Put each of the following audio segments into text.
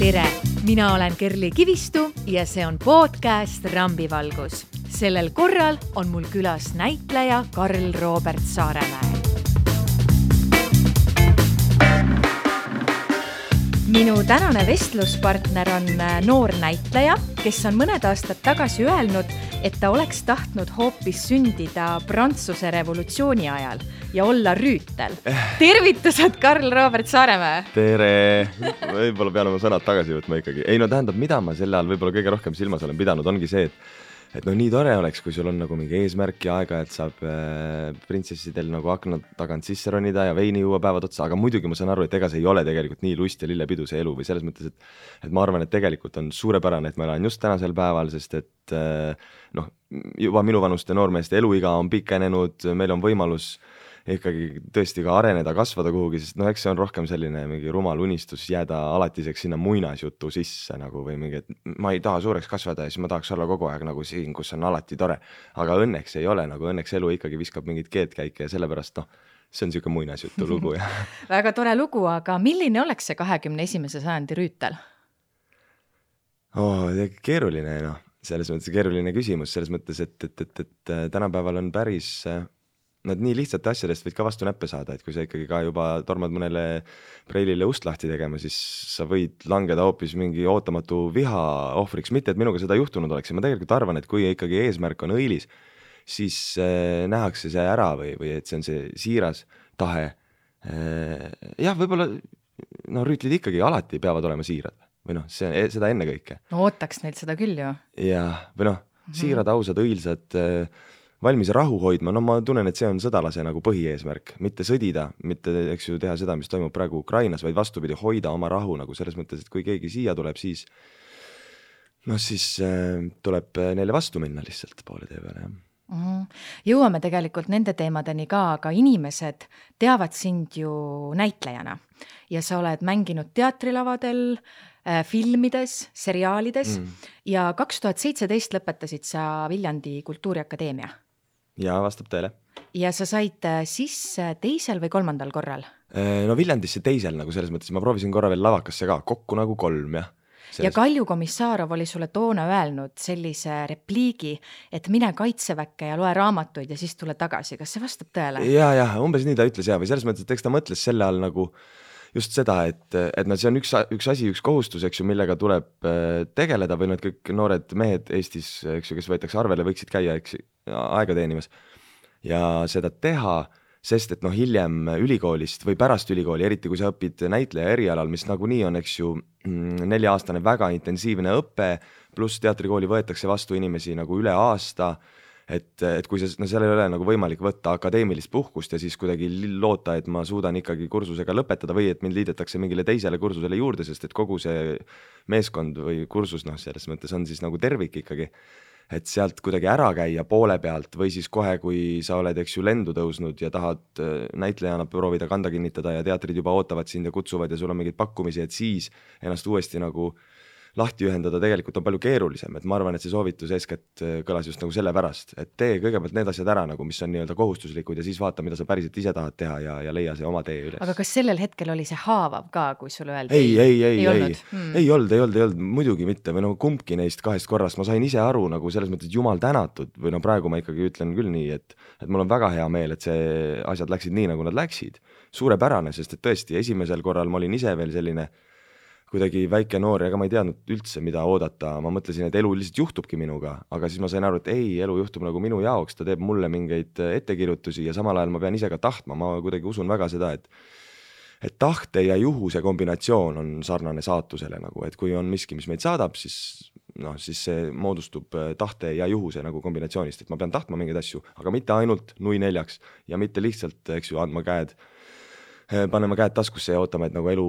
Tere, mina olen Kerli Kivistu ja see on podcast Rambivalgus. Sellel korral on mul külas näitleja Karl Robert Saaremäe. Minu tänane vestluspartner on noor näitleja, kes on mõned aastad tagasi öelnud, et ta oleks tahtnud hoopis sündida Prantsuse revolutsiooni ajal ja olla rüütel. Tervitused, Karl Robert Saaremäe! Tere! Võib-olla pean oma sõnad tagasi võtma ikkagi. Ei, no tähendab, mida ma selle all võib-olla kõige rohkem silmas olen pidanud, ongi see, et nii tore oleks, kui sul on nagu mingi eesmärk ja aega, et saab printsessidel nagu akna tagant sisse ronida ja veini juua päevad otsa, aga muidugi ma saan aru, et ega see ei ole tegelikult nii lust ja lillepidu see elu või selles mõttes, et ma arvan, et tegelikult on suurepärane, et ma elan just tänasel päeval, sest et juba minu vanuste noormeeste eluiga on pikenenud, meil on võimalus ikkagi tõesti ka areneda, kasvada kuhugi, sest eks see on rohkem selline mingi rumal unistus jääda alatiseks sinna muinasjutu sisse nagu või mingi, et ma ei taha suureks kasvada ja siis ma tahaks olla kogu aeg nagu siin, kus on alati tore. Aga õnneks ei ole, nagu õnneks elu ikkagi viskab mingit keedkäike ja sellepärast see on siuke muinasjutu lugu. Väga tore lugu, aga milline oleks see 21. sajandi rüütel? Keeruline, selles mõttes keeruline küsimus, selles mõttes, et tänapäeval on päris nad nii lihtsate asjadest võid ka vastu näppe saada, et kui sa ikkagi ka juba tormad mõnele preilile ust lahti tegema, siis sa võid langeda hoopis mingi ootamatu viha ohvriks, mitte et minuga seda juhtunud oleks. Ja ma tegelikult arvan, et kui ikkagi eesmärk on õilis, siis nähakse see ära või et see on see siiras tahe. Jah, võib-olla rüütlid ikkagi alati peavad olema siirad või seda enne kõike. No ootaks neilt seda küll ju. Jah, või siirad, ausad, õilsad, valmis rahu hoidma, ma tunnen, et see on sõdalase nagu põhieesmärk, mitte sõdida, mitte teha seda, mis toimub praegu Ukrainas, vaid vastupidi hoida oma rahu nagu selles mõttes, et kui keegi siia tuleb, siis tuleb neile vastu minna lihtsalt poole tee peale. Jõuame tegelikult nende teemadeni ka, aga inimesed teavad sind ju näitlejana ja sa oled mänginud teatrilavadel, filmides, seriaalides ja 2017 lõpetasid sa Viljandi Kultuuriakadeemia. Ja vastab teile. Ja sa said sisse 2. või 3. korral? Viljandisse 2. nagu selles mõttes, ma proovisin korra veel lavakasse ka, kokku nagu 3, jah. Ja Kalju Komissarov oli sulle toona öelnud sellise repliigi, et mine kaitseväkke ja loe raamatuid ja siis tule tagasi. Kas see vastab tõele? Ja, umbes nii ta ütles või selles mõttes, et eks ta mõtles selle all nagu just seda, et see on üks asi, üks kohustus, millega tuleb tegeleda või need kõik noored mehed Eestis, kes võetakse arvele, võiksid käia aega teenimas ja seda teha, sest et hiljem ülikoolist või pärast ülikooli, eriti kui sa õpid näitleja erialal, mis nagunii on 4-aastane väga intensiivne õpe, pluss teatrikooli võetakse vastu inimesi nagu üle aasta, et kui seal ei ole nagu võimalik võtta akadeemilist puhkust ja siis kuidagi loota, et ma suudan ikkagi kursusega lõpetada või et mind liidetakse mingile teisele kursusele juurde, sest et kogu see meeskond või kursus selles mõttes on siis nagu tervik ikkagi, et sealt kuidagi ära käia poole pealt või siis kohe, kui sa oled lendu tõusnud ja tahad näitlejana proovida kanda kinnitada ja teatrid juba ootavad sind ja kutsuvad ja sul on mingid pakkumisi, et siis ennast uuesti nagu lahti ühendada tegelikult on palju keerulisem, et ma arvan, et see soovitus eeskätt kõlas just nagu sellepärast, et tee kõigepealt need asjad ära, nagu mis on nii-öelda kohustuslikud ja siis vaata, mida sa päriselt ise tahad teha ja leia see oma tee üles. Aga kas sellel hetkel oli see haavav ka, kui sulle öeldi? Ei olnud, muidugi mitte, või kumbki neist 2 korrast, ma sain ise aru nagu selles mõttes jumal tänatud või praegu ma ikkagi ütlen küll nii, et mul on väga hea meel, et see asjad läksid nii, nagu nad läksid. Suurepärane, sest et tõesti esimesel korral ma olin ise veel selline kuidagi väike noor ja ma ei teadnud üldse, mida oodata. Ma mõtlesin, et elu lihtsalt juhtubki minuga, aga siis ma sain aru, et elu juhtub nagu minu jaoks, ta teeb mulle mingeid ettekirjutusi ja samal ajal ma pean ise ka tahtma. Ma kuidagi usun väga seda, et tahte ja juhuse kombinatsioon on sarnane saatusele nagu, et kui on miski, mis meid saadab, siis see moodustub tahte ja juhuse nagu kombinatsioonist, et ma pean tahtma mingeid asju, aga mitte ainult nui 4 ja mitte lihtsalt, andma käed panema käed taskusse ja ootama, et nagu elu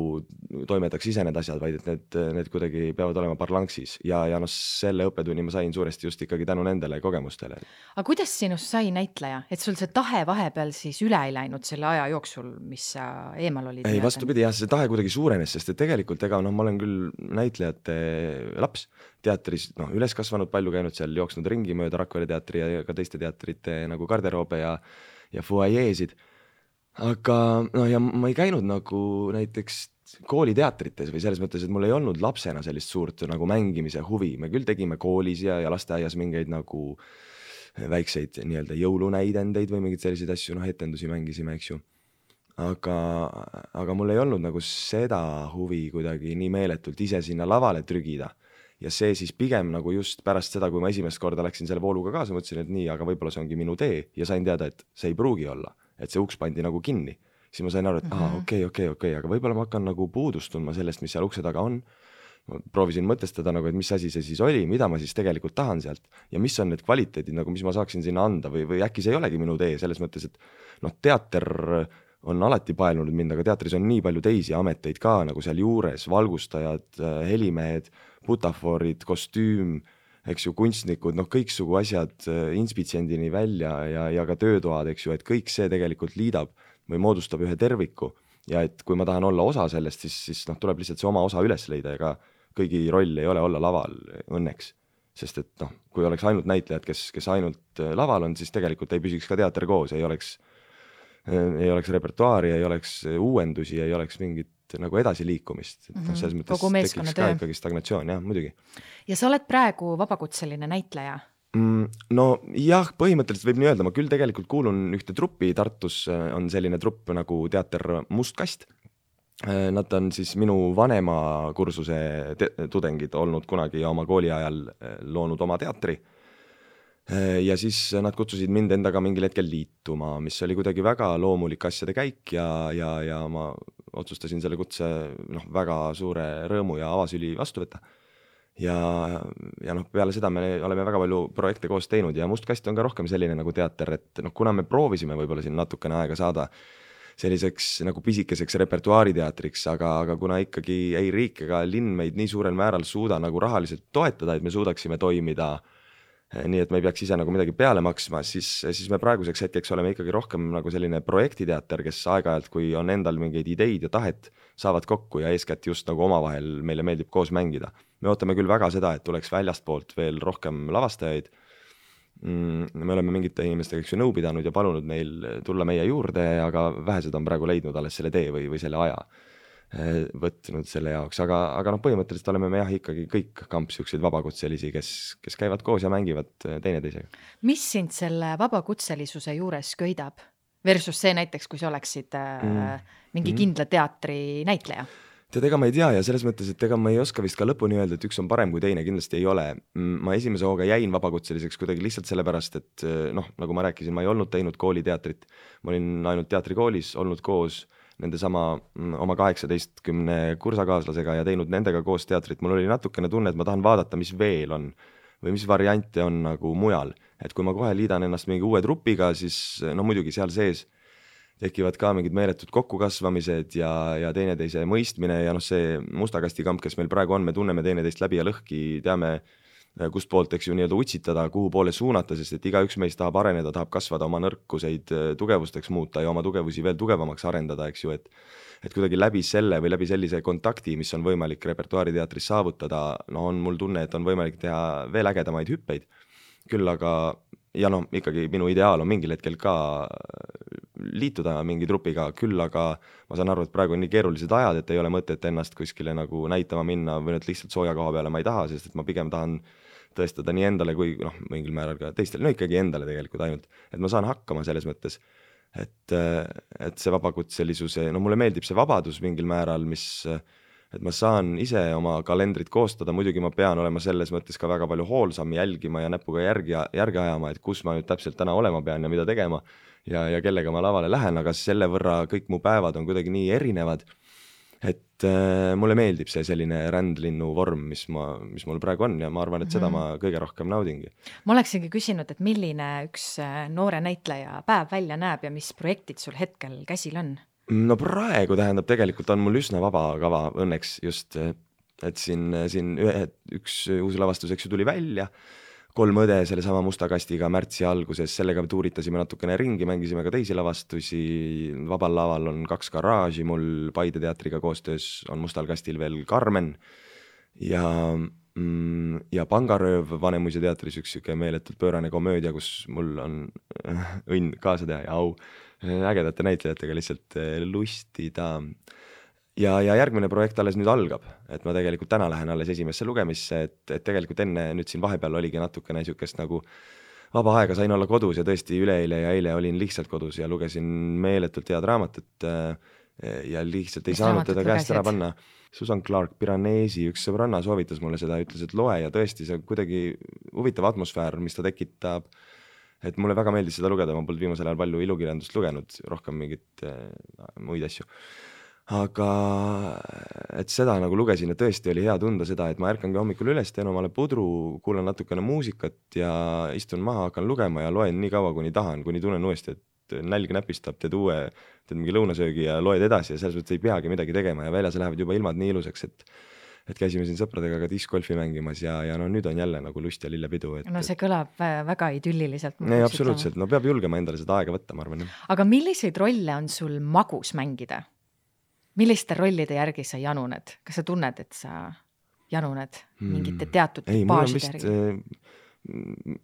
toimetaks ise need asjad, vaid et need kuidagi peavad olema parlanksis ja selle õppetunni ma sain suuresti just ikkagi tänu nendele kogemustele. Aga kuidas sinust sai näitleja? Et sul see tahe vahepeal siis üle ei läinud selle aja jooksul, mis sa eemal olid? Ei, vastupidi, see tahe kuidagi suurenes, sest et tegelikult ma olen küll näitlejate laps teatris, üles kasvanud, palju käinud seal, jooksnud ringi mööda Rakvere teatri ja ka teiste teatrite nagu garderoobe ja fuajeesid. Aga ja ma ei käinud nagu näiteks kooliteatrites või selles mõttes, et mul ei olnud lapsena sellist suurt nagu mängimise huvi. Me küll tegime koolis ja lasteaias mingeid nagu väikseid nii-öelda jõulunäidendeid või mingeid selliseid asju, etendusi mängisime, eks ju. Aga mul ei olnud nagu seda huvi kuidagi nii meeletult ise sinna lavale trügida. Ja see siis pigem nagu just pärast seda, kui ma esimest korda läksin selle vooluga kaasa, mõtlesin, et nii, aga võib-olla see ongi minu tee ja sain teada, et see ei pruugi olla, et see uks pandi nagu kinni. Siis ma sain aru, et okei, aga võib-olla ma hakkan nagu puudust tundma sellest, mis seal ukse taga on. Ma proovisin mõtestada nagu, et mis asi see siis oli, mida ma siis tegelikult tahan sealt ja mis on need kvaliteedid, nagu mis ma saaksin sinna anda või äkki see ei olegi minu tee selles mõttes, et teater on alati paelunud mind, aga teatris on nii palju teisi ameteid ka nagu seal juures, valgustajad, helimehed, butafoorid, kostüüm, eks ju, kunstnikud, kõiksugu asjad inspitsendini välja ja ka töötoad, eks ju, et kõik see tegelikult liidab või moodustab ühe terviku ja et kui ma tahan olla osa sellest, siis tuleb lihtsalt see oma osa üles leida ja ka kõigi roll ei ole olla laval õnneks, sest et kui oleks ainult näitlejad, kes ainult laval on, siis tegelikult ei püsiks ka teater koos, ei oleks repertuaari, ei oleks uuendusi, ei oleks mingit nagu edasiliikumist. Selles mõttes tekiks ka ikkagi stagnatsioon, jah, muidugi. Ja sa oled praegu vabakutseline näitleja? No jah, põhimõtteliselt võib nii öelda, ma küll tegelikult kuulun ühte truppi, Tartus on selline trupp nagu teater Must Kast. Nad on siis minu vanema kursuse tudengid olnud kunagi ja oma kooli ajal loonud oma teatri. Ja siis nad kutsusid mind endaga mingil hetkel liituma, mis oli kuidagi väga loomulik asjade käik ja ma otsustasin selle kutse väga suure rõõmu ja avasüli vastu võtta. Ja peale seda me oleme väga palju projekte koos teinud ja Must Kast on ka rohkem selline nagu teater, et kuna me proovisime võib-olla siin natukene aega saada selliseks nagu pisikeseks repertuaariteatriks, aga kuna ikkagi ei riik ega linn meid nii suurel määral suuda nagu rahaliselt toetada, et me suudaksime toimida nii, et me ei peaks ise nagu midagi peale maksma, siis me praeguseks hetkeks oleme ikkagi rohkem nagu selline projektiteater, kes aeg-ajalt, kui on endal mingeid ideid ja tahet, saavad kokku ja eeskätt just nagu omavahel meile meeldib koos mängida. Me ootame küll väga seda, et tuleks väljastpoolt veel rohkem lavastajaid. Me oleme mingite inimestega nõu pidanud ja palunud neil tulla meie juurde, aga vähesed on praegu leidnud alles selle tee või selle aja võtnud selle jaoks, aga põhimõtteliselt oleme me jah ikkagi kõik kamps siukseid vabakutselisi, kes käivad koos ja mängivad teineteisega. Mis sind selle vabakutselisuse juures köidab versus see näiteks, kui sa oleksid mingi kindla teatri näitleja? Tead, ega ma ei tea ja selles mõttes, et ega ma ei oska vist ka lõpuni öelda, et üks on parem kui teine, kindlasti ei ole. Ma esimese hooga jäin vabakutseliseks kuidagi lihtsalt sellepärast, et nagu ma rääkisin, ma ei olnud teinud kooliteatrit, ma olin ainult teatrikoolis olnud koos nende sama oma 18 kursakaaslasega ja teinud nendega koos teatrit. Mul oli natukene tunne, et ma tahan vaadata, mis veel on või mis variante on nagu mujal. Et kui ma kohe liidan ennast mingi uue trupiga, siis muidugi seal sees tekivad ka mingid meeletud kokkukasvamised ja teineteise mõistmine ja see Musta Kasti kamp, kes meil praegu on, me tunneme teineteist läbi ja lõhki, teame kust poolt, eks ju, nii-öelda utsitada, kuhu poole suunata, sest et igaüks meist tahab areneda, tahab kasvada, oma nõrkuseid tugevusteks muuta ja oma tugevusi veel tugevamaks arendada, eks ju, et kuidagi läbi selle või läbi sellise kontakti, mis on võimalik repertuaariteatris saavutada, on mul tunne, et on võimalik teha veel ägedamaid hüppeid. Küll aga, ja ikkagi minu ideaal on mingil hetkel ka liituda mingi trupiga, küll aga ma saan aru, et praegu on nii keerulised ajad, et ei ole mõtet ennast kuskile nagu näitama minna või nüüd lihtsalt sooja koha peale ma ei taha, sest et ma pigem tahan tõestada nii endale kui mingil määral ka teistele, ikkagi endale tegelikult ainult, et ma saan hakkama selles mõttes, et see vabakutselisuse, mulle meeldib see vabadus mingil määral, et ma saan ise oma kalendrit koostada, muidugi ma pean olema selles mõttes ka väga palju hoolsam jälgima ja näpuga järgi ajama, et kus ma nüüd täpselt täna olema pean ja mida tegema ja kellega ma lavale lähen, aga selle võrra kõik mu päevad on kuidagi nii erinevad, et mulle meeldib see selline rändlinnu vorm, mis mul praegu on ja ma arvan, et seda ma kõige rohkem naudingi. Ma oleksingi küsinud, et milline üks noore näitleja päev välja näeb ja mis projektid sul hetkel käsil on? No praegu tähendab, tegelikult on mul üsna vaba kava õnneks just, et siin üks uus lavastus, eks ju, tuli välja, 3 õde selle sama Musta Kastiga märtsi alguses, sellega tuuritasime natukene ringi, mängisime ka teisi lavastusi, vabal laval on 2 garaaži, mul Paide teatriga koostöös on Mustal Kastil veel Carmen ja Pangarööv Vanemuise teatris üks meeletult pöörane komöödia, kus mul on õnn kaasa teha ja au ägedate näitlejatega lihtsalt lustida. ja järgmine projekt alles nüüd algab, et ma tegelikult täna lähen alles esimesse lugemisse, et tegelikult enne nüüd siin vahepeal oligi natukene niisugust nagu vaba aega, sain olla kodus ja tõesti üleeile ja eile olin lihtsalt kodus ja lugesin meeletult head raamatut ja lihtsalt ei saanud teda käest ära panna. Susan Clark Piranesi üks sõbranna soovitas mulle seda, ütles, et loe ja tõesti see kuidagi huvitav atmosfäär, mis ta tekitab, et mulle väga meeldis seda lugeda, ma polnud viimasel ajal palju ilukirjandust lugenud, rohkem mingit muid asju. Aga et seda nagu lugesin ja tõesti oli hea tunda seda, et ma ärkangi hommikul üles, teen omale pudru, kuulan natukene muusikat ja istun maha, hakkan lugema ja loen nii kaua, kuni tahan, kuni tunnen uuesti, et nälg näpistab, teed mingi lõunasöögi ja loed edasi ja selles mõttes ei peagi midagi tegema ja väljas lähevad juba ilmad nii ilusaks, et käisime siin sõpradega ka discgolfi mängimas ja no nüüd on jälle nagu lust ja lillepidu. No see kõlab väga idylliliselt. Ei, absoluutselt, no peab julgema endale seda aega võtta, ma arvan. Aga milliseid rolle on sul magus mängida? Milliste rollide järgi sa januned? Kas sa tunned, et sa januned mingite teatud baaside järgi?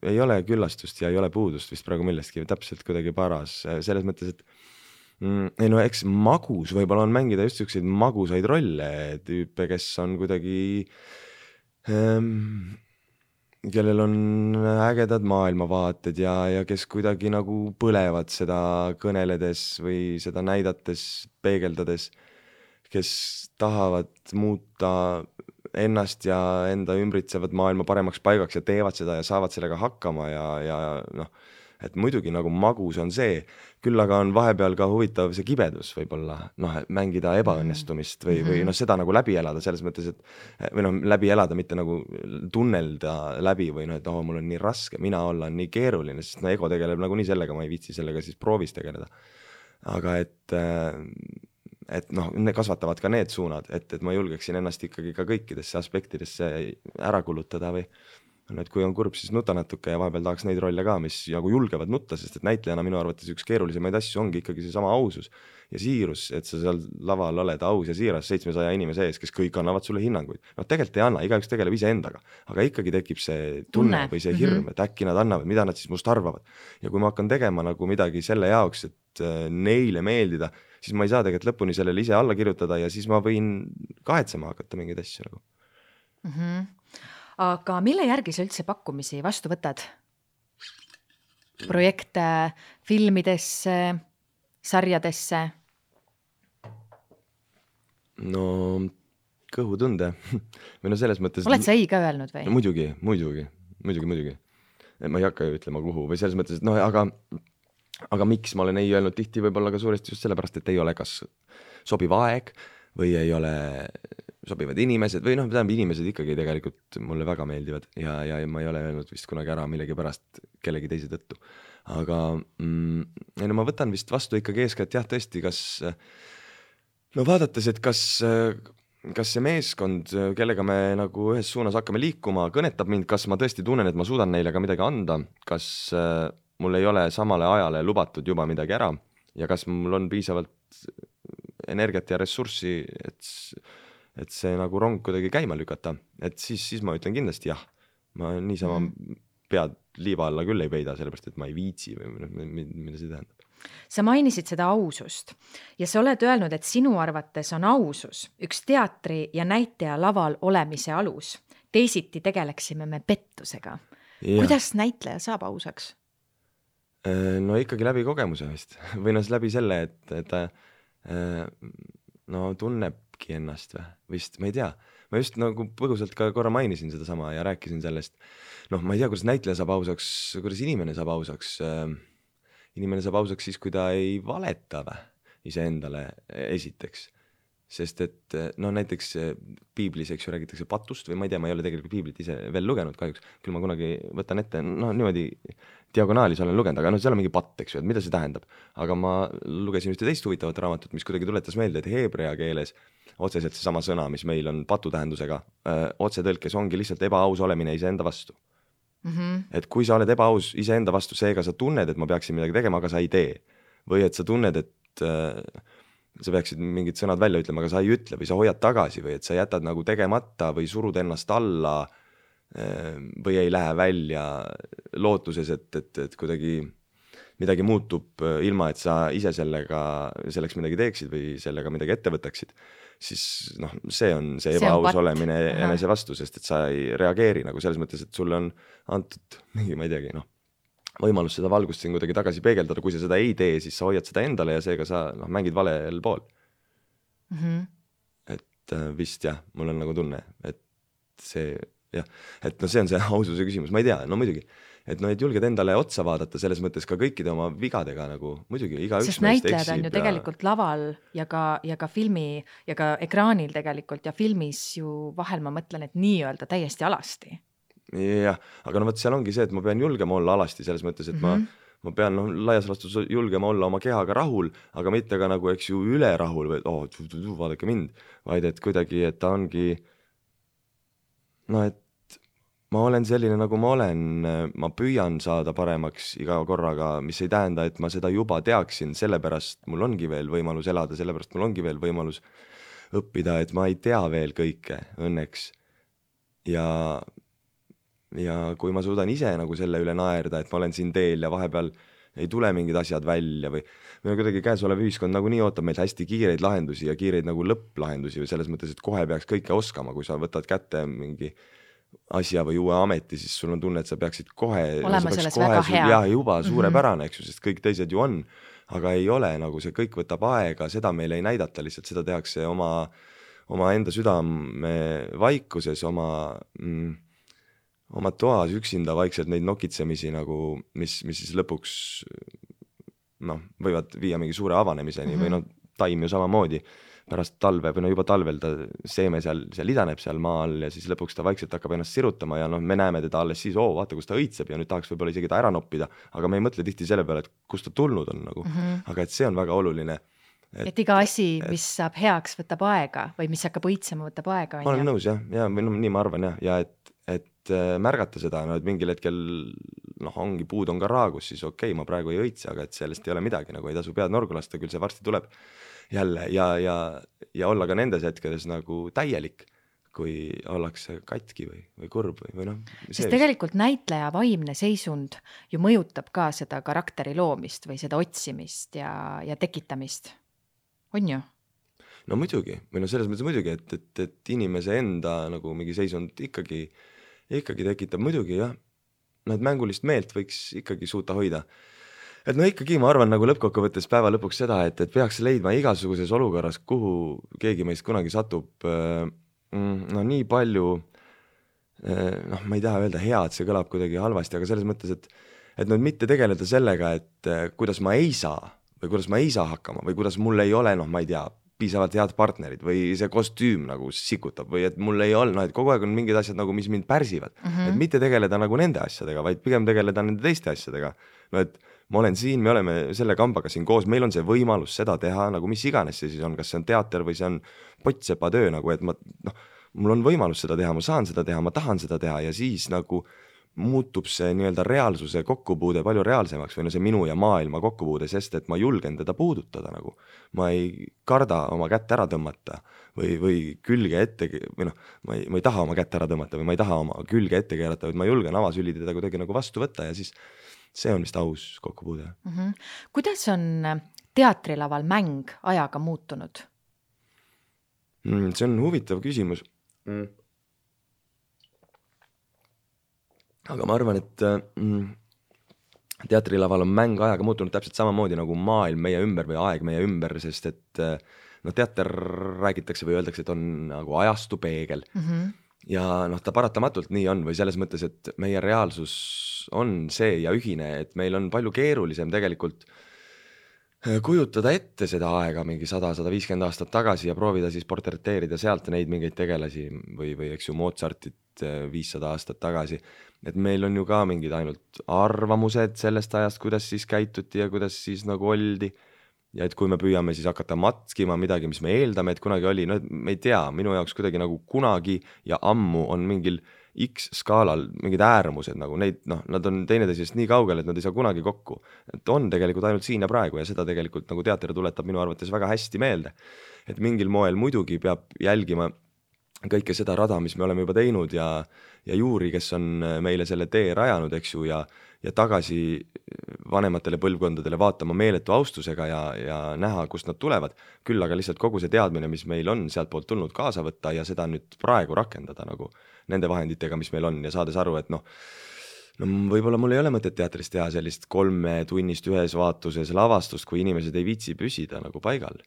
Ei ole küllastust ja ei ole puudust vist praegu millestki, täpselt kuidagi paras. Selles mõttes, et ei no eks magus võib-olla on mängida just selliseid magusaid rolle tüüpe, kes on kuidagi kellel on ägedad maailmavaated ja kes kuidagi nagu põlevad seda kõneledes või seda näidates, peegeldades, kes tahavad muuta ennast ja enda ümbritsevad maailma paremaks paigaks ja teevad seda ja saavad sellega hakkama ja noh, et muidugi nagu magus on see, küll aga on vahepeal ka huvitav see kibedus võib-olla, noh, mängida ebaõnnestumist või noh, seda nagu läbi elada selles mõttes, et või noh, läbi elada, mitte nagu tunnelda läbi või noh, et mul on nii raske, mina olla on nii keeruline, sest no ego tegeleb nagu nii sellega, ma ei viitsi sellega siis proovis tegeleda. Aga et noh, kasvatavad ka need suunad, et ma julgeksin ennast ikkagi ka kõikidesse aspektidesse ära kulutada või et kui on kurb, siis nuta natuke ja vahepeal tahaks neid rolle ka, mis nagu julgevad nutta, sest et näitlejana minu arvates üks keerulisemaid asju ongi ikkagi see sama ausus ja siirus, et sa seal laval oled aus ja siiras 700 inimese ees, kes kõik annavad sulle hinnanguid. No tegelikult ei anna, igaüks tegeleb ise endaga, aga ikkagi tekib see tunne või see hirm, et äkki nad annavad, mida nad siis must arvavad. Ja kui ma hakkan tegema nagu midagi selle jaoks, et neile meeldida, siis ma ei saa tegelikult lõpuni sellele ise alla kirjutada ja siis ma võin kahetsema hakata mingeid asju nagu. Aga mille järgi sa üldse pakkumisi vastu võtad? Projekte filmidesse, sarjadesse? No kõhutunde. Või no selles mõttes... Oled sa ei ka öelnud või? Muidugi. Ma ei hakka ju ütlema kuhu või selles mõttes, et noh, aga miks ma olen ei öelnud tihti võib-olla ka suuresti just sellepärast, et ei ole kas sobiv aeg või ei ole sobivad inimesed või noh, inimesed ikkagi tegelikult mulle väga meeldivad ja ma ei ole öelnud vist kunagi ära millegi pärast kellegi teise tõttu. Aga no ma võtan vist vastu ikkagi eeskätt jah, tõesti, kas no vaadates, et kas see meeskond, kellega me nagu ühes suunas hakkame liikuma, kõnetab mind, kas ma tõesti tunnen, et ma suudan neile ka midagi anda, kas mul ei ole samale ajale lubatud juba midagi ära ja kas mul on piisavalt energiat ja ressurssi, et see nagu rong kuidagi käima lükata, et siis ma ütlen kindlasti jah. Ma niisama pead liiva alla küll ei peida, sellepärast, et ma ei viitsi või mida see tähendab. Sa mainisid seda ausust ja sa oled öelnud, et sinu arvates on ausus üks teatri ja näitleja laval olemise alus. Teisiti tegeleksime me pettusega. Ja. Kuidas näitleja saab ausaks? No ikkagi läbi kogemuse vist. Või no läbi selle, et no tunnebki ennast või vist, ma ei tea. Ma just nagu põgusalt ka korra mainisin seda sama ja rääkisin sellest. Noh, ma ei tea, kuidas näitleja saab ausaks, kuidas inimene saab ausaks. Inimene saab ausaks siis, kui ta ei valeta iseendale esiteks. Sest et no näiteks piiblis, eks ju, räägitakse patust või ma ei tea, ma ei ole tegelikult piiblit ise veel lugenud kahjuks. Küll ma kunagi võtan ette, no niimoodi diagonaalis olen lugenud, aga no seal on mingi patt, eks ju, et mida see tähendab. Aga ma lugesin ühte teist huvitavat raamatut, mis kuidagi tuletas meelde, et heebrea keeles otseselt see sama sõna, mis meil on patu tähendusega, otsetõlkes ongi lihtsalt ebaaus olemine iseenda vastu. Et kui sa oled ebaaus iseenda vastu, seega sa tunned, et ma peaksin midagi tegema, aga sa ei tee. Või et sa tunned, et sa peaksid mingid sõnad välja ütlema, aga sa ei ütle või sa hoiad tagasi või et sa jätad nagu tegemata või surud ennast alla või ei lähe välja lootuses, et kuidagi midagi muutub ilma, et sa ise selleks midagi teeksid või sellega midagi ette võtaksid, siis noh, see on see ebaaus olemine enese vastu, sest et sa ei reageeri nagu selles mõttes, et sulle on antud mingi, ma ei teagi, noh, võimalus seda valgust siin kuidagi tagasi peegeldada, kui sa seda ei tee, siis sa hoiad seda endale ja seega sa mängid valel pool. Et vist jah, mul on nagu tunne, et see jah, et no see on see aususe küsimus, ma ei tea, no muidugi, et no et julged endale otsa vaadata selles mõttes ka kõikide oma vigadega nagu muidugi igaüks sest näitlejad on ju tegelikult laval ja ka filmi ja ka ekraanil tegelikult ja filmis ju vahel ma mõtlen, et nii-öelda täiesti alasti. Jah, aga no võt seal ongi see, et ma pean julgema olla alasti selles mõttes, et ma pean laias laastus julgema olla oma kehaga rahul, aga mitte ka nagu, eks ju, üle rahul või vaadake mind, vaid et kuidagi, et ta ongi no, et ma olen selline, nagu ma olen, ma püüan saada paremaks iga korraga, mis ei tähenda, et ma seda juba teaksin, sellepärast mul ongi veel võimalus elada, sellepärast mul ongi veel võimalus õppida, et ma ei tea veel kõike õnneks. Ja kui ma suudan ise nagu selle üle naerda, et ma olen siin teel ja vahepeal ei tule mingid asjad välja või kuidagi käesolev ühiskond nagu nii ootab meil hästi kiireid lahendusi ja kiireid nagu lõpplahendusi või selles mõttes, et kohe peaks kõike oskama, kui sa võtad kätte mingi asja või uue ameti, siis sul on tunne, et sa peaksid kohe olema selles väga hea. Ja juba suurepärane, eks ju, sest kõik teised ju on, aga ei ole, nagu see kõik võtab aega, seda meile ei näidata, lihtsalt seda tehakse oma enda südame vaikuses, oma toas üksinda vaikselt neid nokitsemisi nagu, mis siis lõpuks võivad viia mingi suure avanemiseni või taim ju samamoodi pärast talve või juba talvel ta seeme seal idaneb seal maa all ja siis lõpuks ta vaikselt hakkab ennast sirutama ja me näeme teda alles siis, vaata, kus ta õitseb ja nüüd tahaks võib-olla isegi ta ära noppida, aga me ei mõtle tihti selle peale, et kust ta tulnud on nagu. Aga et see on väga oluline. Et iga asi, mis saab heaks, võtab aega või mis hakkab õitsema, võtab aega. Ma olen nõus jah, või nii ma arvan jah, ja et märgata seda, et mingil hetkel ongi puud on ka raagus, siis okei, ma praegu ei õitse, aga et sellest ei ole midagi, nagu ei tasu pead norgu lasta, küll see varsti tuleb jälle ja olla ka nendes hetkedes nagu täielik, kui ollakse katki või kurb või sest tegelikult näitleja vaimne seisund ju mõjutab ka seda karakteri loomist või seda otsimist ja tekitamist, on ju? No muidugi, või selles mõttes muidugi, et inimese enda nagu mingi seisund ikkagi tekitab muidugi jah, et mängulist meelt võiks ikkagi suuta hoida. Et ikkagi ma arvan nagu lõppkokkuvõttes päeva lõpuks seda, et peaks leidma igasuguses olukorras, kuhu keegi meist kunagi satub, nii palju, ma ei taha öelda hea, et see kõlab kuidagi halvasti, aga selles mõttes, et mitte tegeleda sellega, et kuidas ma ei saa või kuidas ma ei saa hakkama või kuidas mul ei ole, ma ei tea, piisavalt head partnerid või see kostüüm nagu sikutab või et mul ei ole, et kogu aeg on mingid asjad nagu, mis mind pärsivad. Et mitte tegeleda nagu nende asjadega, vaid pigem tegeleda nende teiste asjadega. Et ma olen siin, me oleme selle kambaga siin koos, meil on see võimalus seda teha, nagu mis iganes see siis on, kas see on teater või see on pottsepa töö, nagu et mul on võimalus seda teha, ma saan seda teha, ma tahan seda teha ja siis nagu muutub see nii-öelda reaalsuse kokkupuude palju reaalsemaks või see minu ja maailma kokkupuude, sest et ma julgen teda puudutada nagu. Ma ei karda oma kätt ära tõmmata või külge ette, või ma ei taha oma kätt ära tõmmata või ma ei taha oma külge ette keerata, vaid ma julgen avasüli teda kuidagi nagu vastu võtta ja siis see on vist aus kokkupuude. Kuidas on teatrilaval mäng ajaga muutunud? See on huvitav küsimus. Aga ma arvan, et teatrilaval on mäng ajaga muutunud täpselt samamoodi nagu maailm meie ümber või aeg meie ümber, sest et teater räägitakse või öeldakse, et on nagu ajastu peegel. Ja ta paratamatult nii on või selles mõttes, et meie reaalsus on see ja ühine, et meil on palju keerulisem tegelikult kujutada ette seda aega mingi 100-150 aastat tagasi ja proovida siis portreteerida sealt neid mingeid tegelasi või eks ju Mozartit 500 aastat tagasi. Et meil on ju ka mingid ainult arvamused sellest ajast, kuidas siis käituti ja kuidas siis nagu oldi. Ja et kui me püüame siis hakata matskima midagi, mis me eeldame, et kunagi oli, me ei tea, minu jaoks kuidagi nagu kunagi ja ammu on mingil X-skaalal mingid äärmused, nagu neid, nad on teineteisest nii kaugel, et nad ei saa kunagi kokku. Et on tegelikult ainult siin ja praegu ja seda tegelikult nagu teater tuletab minu arvates väga hästi meelde. Et mingil moel muidugi peab jälgima kõike seda rada, mis me oleme juba teinud ja juuri, kes on meile selle tee rajanud, eks ju, ja ja tagasi vanematele põlvkondadele vaatama meeletu austusega ja näha, kust nad tulevad, küll aga lihtsalt kogu see teadmine, mis meil on sealt poolt tulnud, kaasa võtta ja seda nüüd praegu rakendada nagu nende vahenditega, mis meil on ja saades aru, et no võib-olla mul ei ole mõtet teatris teha sellist 3 tunnist ühes vaatuses lavastust, kui inimesed ei viitsi püsida nagu paigal.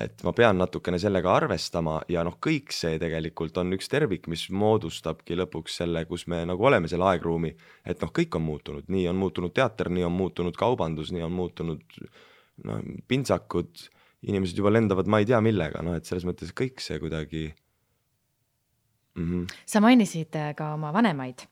Et ma pean natukene sellega arvestama ja kõik see tegelikult on üks tervik, mis moodustabki lõpuks selle, kus me nagu oleme selle aegruumi, et kõik on muutunud, nii on muutunud teater, nii on muutunud kaubandus, nii on muutunud pintsakud, inimesed juba lendavad, ma ei tea millega, et selles mõttes kõik see kuidagi. Sa mainisid ka oma vanemaid.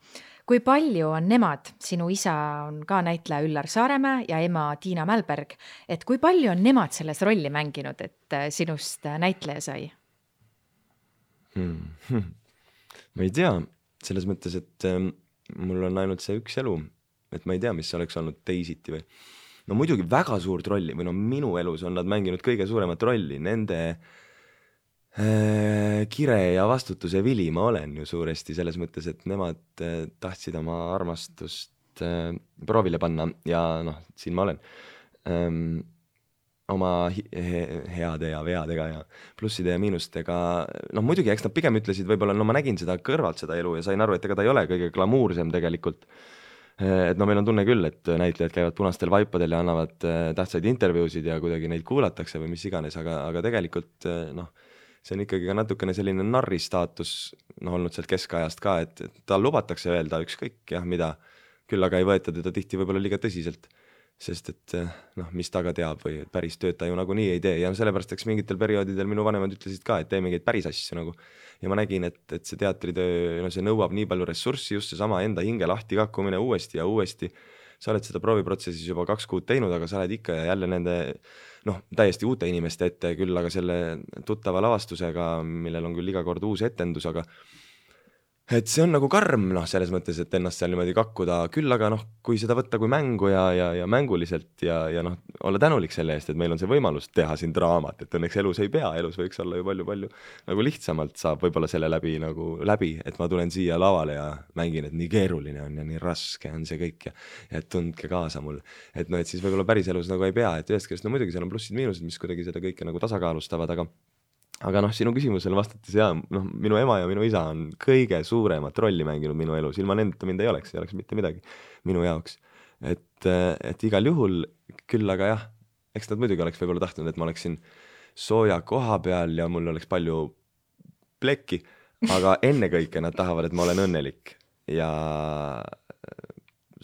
Kui palju on nemad, sinu isa on ka näitleja Üllar Saaremäe ja ema Tiina Mälberg, et kui palju on nemad selles rolli mänginud, et sinust näitleja sai? Ma ei tea, selles mõttes, et mul on ainult see üks elu, et ma ei tea, mis oleks olnud teisiti või. No muidugi väga suurt rolli või minu elus on nad mänginud kõige suuremat rolli, nende kire ja vastutuse vili ma olen ju suuresti selles mõttes, et nemad tahtsid oma armastust proovile panna ja siin ma olen oma heade ja veadega ja plusside ja miinustega. Muidugi, eks nad pigem ütlesid võib-olla, ma nägin seda kõrvalt seda elu ja sain aru, et ega ta ei ole kõige glamuursem tegelikult. Et meil on tunne küll, et näitlejad käivad punastel vaipadel ja annavad tähtsaid intervjuusid ja kuidagi neid kuulatakse või mis iganes, aga tegelikult see on ikkagi ka natukene selline narri staatus olnud sealt keskajast ka, et tal lubatakse öelda ükskõik mida, küll aga ei võeta teda tihti võib-olla liiga tõsiselt, sest et mis ta ka teab või päris tööd ta ju nagunii ei tee ja sellepärast, eks mingitel perioodidel minu vanemad ütlesid ka, et tee mingeid päris asju nagu. Ja ma nägin, et see teatritöö, see nõuab nii palju ressurssi, just see sama enda hinge lahti kakkumine uuesti ja uuesti. Sa oled seda prooviprotsessis juba 2 kuud teinud, aga sa oled ikka ja jälle nende täiesti uute inimeste ette, küll aga selle tuttava lavastusega, millel on küll iga kord uus etendus, aga et see on nagu karm selles mõttes, et ennast seal niimoodi kakkuda, küll aga kui seda võtta kui mängu ja mänguliselt ja olla tänulik selle eest, et meil on see võimalus teha siin draamat, et õnneks elus ei pea, elus võiks olla ju palju nagu lihtsamalt saab võib-olla selle läbi, et ma tulen siia lavale ja mängin, et nii keeruline on ja nii raske on see kõik ja et tundke kaasa mul, et et siis võib-olla päris elus nagu ei pea, et ühest küljest muidugi seal on plussid-miinused, mis kuidagi seda kõike nagu tasakaalustavad, aga sinu küsimusele vastates minu ema ja minu isa on kõige suuremat rolli mänginud minu elus, ilma nendeta mind ei oleks mitte midagi minu jaoks, et igal juhul küll, aga jah, eks nad muidugi oleks võib-olla tahtnud, et ma oleksin sooja koha peal ja mul oleks palju plekki, aga ennekõike nad tahavad, et ma olen õnnelik ja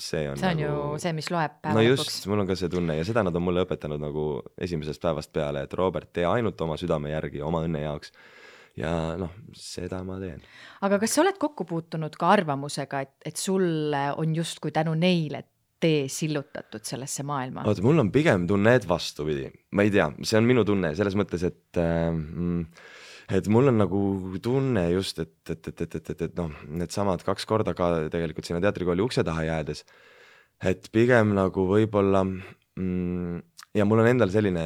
see on ju see, mis loeb päeva lõpuks. Just, mul on ka see tunne ja seda nad on mulle õpetanud nagu esimesest päevast peale, et Robert, tee ainult oma südame järgi, oma õnne jaoks ja seda ma teen. Aga kas sa oled kokku puutunud ka arvamusega, et sulle on justkui tänu neile tee sillutatud sellesse maailma? Oota, mul on pigem tunne, et vastupidi. Ma ei tea, see on minu tunne selles mõttes, et mul on nagu tunne just, et need samad 2 korda ka tegelikult sinna teatrikooli ukse taha jäädes, et pigem nagu võib-olla ja mul on endal selline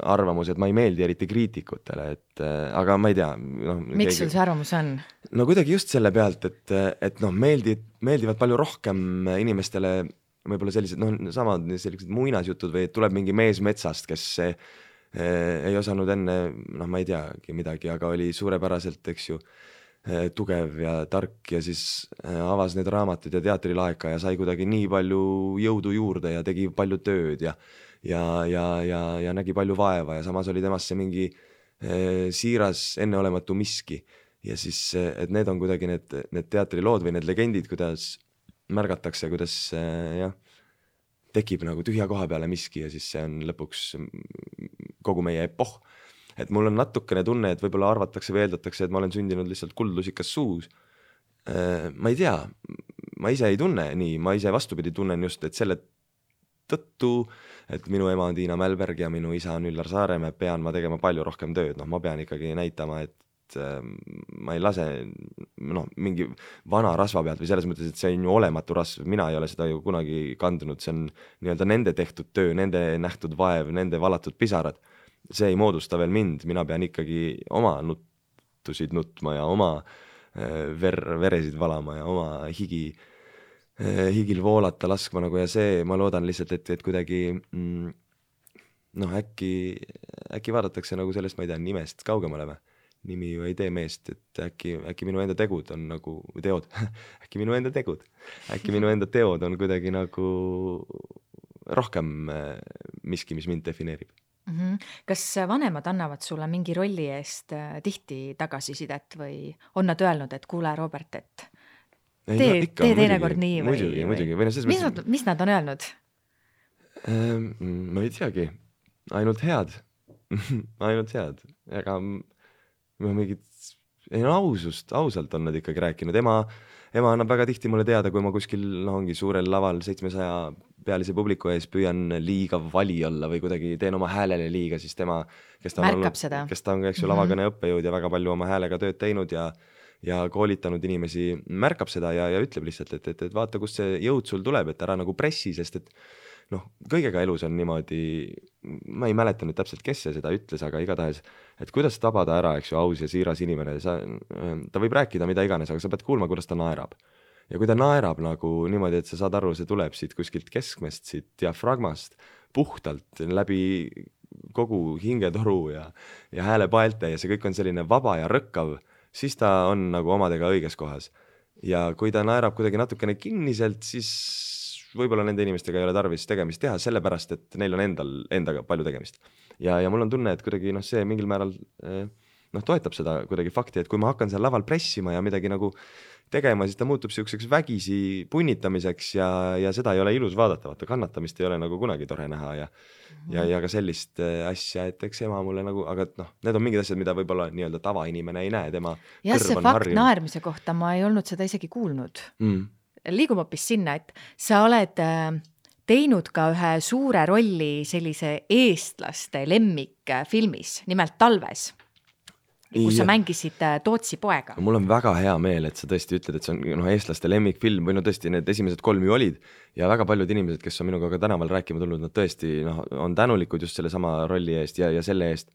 arvamus, et ma ei meeldi eriti kriitikutele, aga ma ei tea. Miks sul see arvamus on? Kuidagi just selle pealt, et meeldivad palju rohkem inimestele võib-olla sellised, samad sellised muinasjutud või tuleb mingi mees metsast, kes ei osanud enne, ma ei teagi midagi, aga oli suurepäraselt, eks ju, tugev ja tark ja siis avas need raamatud ja teatrilaeka ja sai kuidagi nii palju jõudu juurde ja tegi palju tööd ja nägi palju vaeva ja samas oli temasse mingi siiras enneolematu miski ja siis, et need on kuidagi need teatrilood või need legendid, kuidas märgatakse, kuidas tekib nagu tühja koha peale miski ja siis see on lõpuks kogu meie epoh. Et mul on natukene tunne, et võib-olla arvatakse või eeldatakse, et ma olen sündinud lihtsalt kuldlusikas suus. Ma ei tea, ma ise ei tunne nii, ma ise vastupidi tunnen just, et selle tõttu, et minu ema on Tiina Mälberg ja minu isa on Üllar Saaremäe, pean ma tegema palju rohkem tööd, ma pean ikkagi näitama, et ma ei lase mingi vana rasva pealt või selles mõttes, et see on ju olematu rasv, mina ei ole seda ju kunagi kandunud, see on nii-öelda nende tehtud töö, nende nähtud vaev, nende valatud pisarad, see ei moodusta veel mind, mina pean ikkagi oma nuttusid nutma ja oma veresid valama ja oma higi higil voolata laskma nagu ja see, ma loodan lihtsalt, et kuidagi noh, äkki vaadatakse nagu sellest, ma ei tea, nimest kaugemale või? Nimi ju ei tee meest, et äkki minu enda tegud on nagu, teod, äkki minu enda teod on kuidagi nagu rohkem miski, mis mind defineerib. Kas vanemad annavad sulle mingi rolli eest tihti tagasisidet või on nad öelnud, et kuule, Robert, et tee teinekord nii või? Muidugi. Mis nad on öelnud? Ma ei teagi, ainult head. Ega mingit, ausalt on nad ikkagi rääkinud. Ema annab väga tihti mulle teada, kui ma kuskil ongi suurel laval 700 pealise publiku ees püüan liiga vali olla või kuidagi teen oma häälele liiga, siis tema, kes ta on lavakõne õppejõud ja väga palju oma häälega tööd teinud ja koolitanud inimesi, märkab seda ja ütleb lihtsalt, et vaata, kust see jõud sul tuleb, et ära nagu pressi, sest et noh, kõigega elus on niimoodi, ma ei mäleta nüüd täpselt, kes see seda ütles, aga igatahes, et kuidas tabada ära, eks ju, aus ja siiras inimene, ta võib rääkida mida iganes, aga sa pead kuulma, kuidas ta naerab. Ja kui ta naerab nagu niimoodi, et sa saad aru, see tuleb siit kuskilt keskmest, siit diafragmast, puhtalt läbi kogu hingetoru ja häälepaelte ja see kõik on selline vaba ja rõkkav, siis ta on nagu omadega õiges kohas. Ja kui ta naerab kuidagi natukene kinniselt, siis võib-olla nende inimestega ei ole tarvis tegemist teha, sellepärast, et neil on endaga palju tegemist. Ja mul on tunne, et kuidagi see mingil määral toetab seda kuidagi fakti, et kui ma hakkan seal laval pressima ja midagi nagu tegema, siis ta muutub selliseks vägisi punnitamiseks ja seda ei ole ilus vaadata, vaata kannatamist ei ole nagu kunagi tore näha ja ka sellist asja, et eks ema mulle nagu, aga need on mingid asjad, mida võib-olla nii-öelda tavainimene ei näe, tema ja see fakt naermise kohta, ma ei olnud seda isegi kuulnud. Liigume hoopis sinna, et sa oled teinud ka ühe suure rolli sellise eestlaste lemmikfilmis, nimelt Talves, kus sa mängisid Tootsi poega. Mul on väga hea meel, et sa tõesti ütled, et see on eestlaste lemmikfilm või tõesti need esimesed 3 ju olid ja väga paljud inimesed, kes on minuga ka tänaval rääkima tulnud, nad tõesti on tänulikud just selle sama rolli eest ja selle eest,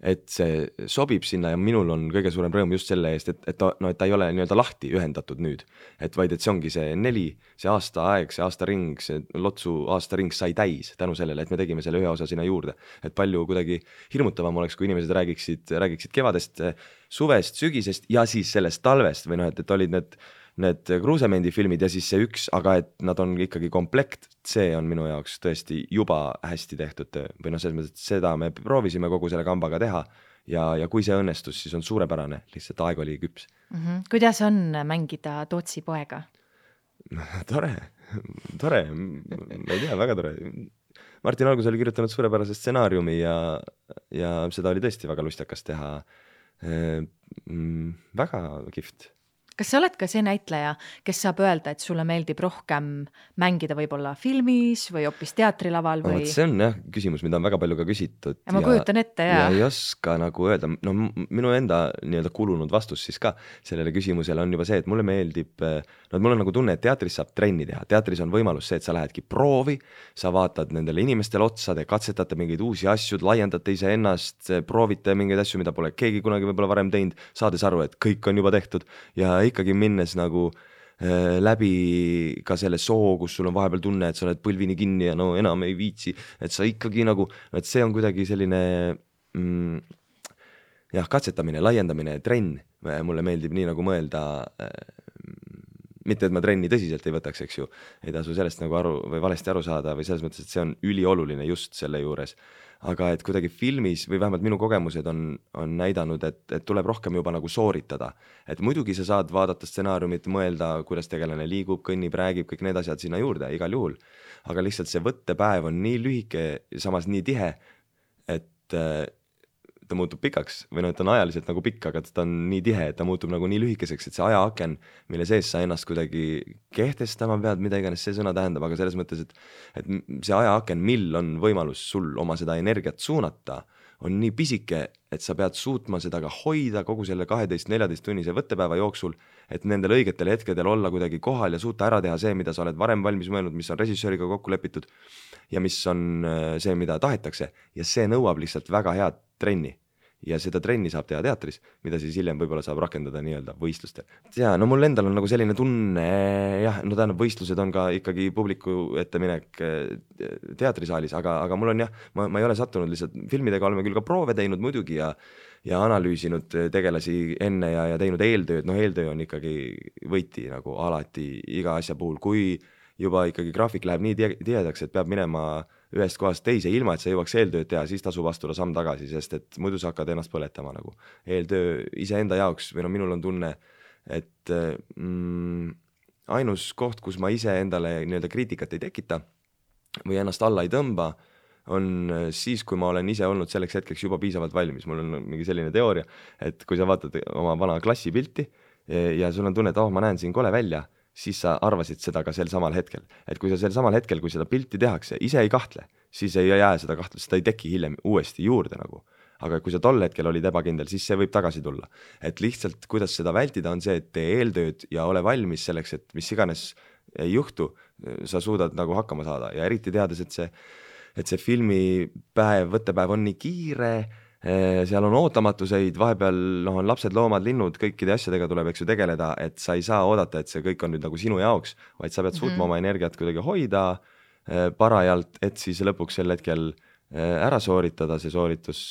et see sobib sinna ja minul on kõige suurem rõõm just selle eest, et ta ei ole nii-öelda lahti ühendatud nüüd, et vaid et see ongi see 4, see aastaaeg, see aastaring, see Lotsu aastaring sai täis tänu sellele, et me tegime selle ühe osa sinna juurde, et palju kuidagi hirmutavam oleks, kui inimesed räägiksid kevadest, suvest, sügisest ja siis sellest talvest või et olid need Kruusemendi filmid ja siis see üks, aga et nad on ikkagi komplekt, see on minu jaoks tõesti juba hästi tehtud töö. Või selles mõttes, et seda me proovisime kogu selle kambaga teha ja kui see õnnestus, siis on suurepärane, lihtsalt aeg oli küps. Kuidas on mängida Tootsi poega? Tore, ma ei tea, väga tore. Martin Algus oli kirjutanud suurepärase stsenaariumi ja seda oli tõesti väga lustakas teha. Väga kihvt. Kas sa oled ka see näitleja, kes saab öelda, et sulle meeldib rohkem mängida võib-olla filmis või hoopis teatrilaval või? See on küsimus, mida on väga palju ka küsitud. Ja ma kujutan ette, ja ei oska nagu öelda, minu enda nii-öelda kulunud vastus siis ka sellele küsimusele on juba see, et mulle meeldib, mul on nagu tunne, et teatris saab trenni teha. Teatris on võimalus see, et sa lähedki proovi, sa vaatad nendele inimestele otsa, te katsetate mingeid uusi asju, laiendate ise ennast, proovite mingeid asju, mida pole keegi kunagi võib-olla varem teinud, saades aru, et kõik on juba tehtud ja ikkagi minnes nagu läbi ka selle soo, kus sul on vahepeal tunne, et sa oled põlvini kinni ja enam ei viitsi, et sa ikkagi nagu, et see on kuidagi selline katsetamine, laiendamine, trenn. Mulle meeldib nii nagu mõelda, mitte et ma trenni tõsiselt ei võtaks, eks ju, ei tasu sellest nagu või valesti aru saada või selles mõttes, et see on ülioluline just selle juures. Aga et kuidagi filmis või vähemalt minu kogemused on näidanud, et tuleb rohkem juba nagu sooritada. Et muidugi sa saad vaadata stsenaariumit, mõelda, kuidas tegelane liigub, kõnnib, räägib, kõik need asjad sinna juurde igal juhul. Aga lihtsalt see võttepäev on nii lühike, samas nii tihe, et ta muutub pikaks või et on ajaliselt nagu pikk, aga ta on nii tihe, et ta muutub nagu nii lühikeseks, et see ajaaken, mille sees sa ennast kuidagi kehtestama pead, mida iganes see sõna tähendab, aga selles mõttes, et see ajaaken, mil on võimalus sul oma seda energiat suunata, on nii pisike, et sa pead suutma seda ka hoida kogu selle 12-14 tunnise võttepäeva jooksul, et nendel õigetel hetkedel olla kuidagi kohal ja suuta ära teha see, mida sa oled varem valmis mõelnud, mis on režissööriga kokku lepitud ja mis on see, mida tahetakse ja see nõuab lihtsalt väga head trenni ja seda trenni saab teha teatris, mida siis hiljem võib-olla saab rakendada nii-öelda võistlustel. Ja no mul endal on nagu selline tunne, jah, no tähendab, võistlused on ka ikkagi publiku ette minek teatrisaalis, aga mul on jah, ma ei ole sattunud lihtsalt, filmidega oleme küll ka proove teinud muidugi ja analüüsinud tegelasi enne ja teinud eeltööd, no eeltöö on ikkagi võiti nagu alati iga asja puhul, kui juba ikkagi graafik läheb nii tihedaks, et peab minema ühest kohast teise, ilma et sa jõuaks eeltööd teha, siis tasub astuda samm tagasi, sest et muidu sa hakkad ennast põletama nagu. Eeltöö iseenda jaoks, või no minul on tunne, et ainus koht, kus ma ise endale nii-öelda kriitikat ei tekita või ennast alla ei tõmba, on siis, kui ma olen ise olnud selleks hetkeks juba piisavalt valmis. Mul on mingi selline teooria, et kui sa vaatad oma vana klassipilti ja sul on tunne, et ma näen siin kole välja, siis sa arvasid seda ka sel samal hetkel. Et kui sa sel samal hetkel, kui seda pilti tehakse, ise ei kahtle, siis ei jää seda kahtlust, seda ei teki hiljem uuesti juurde nagu. Aga kui sa tol hetkel olid ebakindel, siis see võib tagasi tulla. Et lihtsalt, kuidas seda vältida, on see, et tee eeltööd ja ole valmis selleks, et mis iganes ei juhtu, sa suudad nagu hakkama saada. Ja eriti teades, et see filmipäev, võttepäev on nii kiire, seal on ootamatuseid, vahepeal on lapsed, loomad, linnud, kõikide asjadega tuleb eks ju tegeleda, et sa ei saa oodata, et see kõik on nüüd nagu sinu jaoks, vaid sa pead suutma oma energiat kuidagi hoida parajalt, et siis lõpuks sel hetkel ära sooritada see sooritus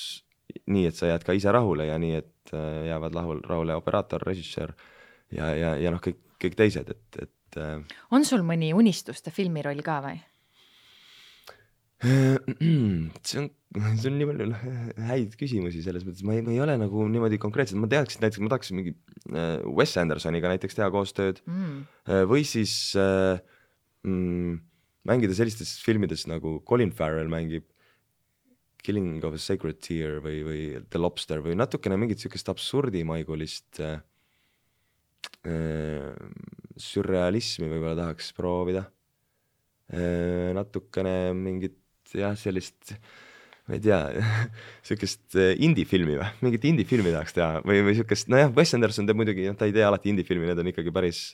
nii, et sa jääd ka ise rahule ja nii, et jäävad rahule operaator, režissöör ja kõik teised. On sul mõni unistuste filmiroll ka või? See on nii palju häid küsimusi selles mõttes, ma ei ole nagu niimoodi konkreetselt, ma teaksin näiteks, ma tahaksin mingi Wes Andersoniga näiteks teha koostööd või siis mängida sellistes filmides nagu Colin Farrell mängib Killing of a Sacred Tear või The Lobster või natukene mingit sükest absurdimaigulist sürrealismi võib-olla tahaks proovida. Natukene mingit jah, sellist, ma ei tea, sükest indie-filmi või, mingit indie-filmi tahaks teha või sükest, no jah, Wes Anderson teeb muidugi, ta ei tee alati indie-filmi, need on ikkagi päris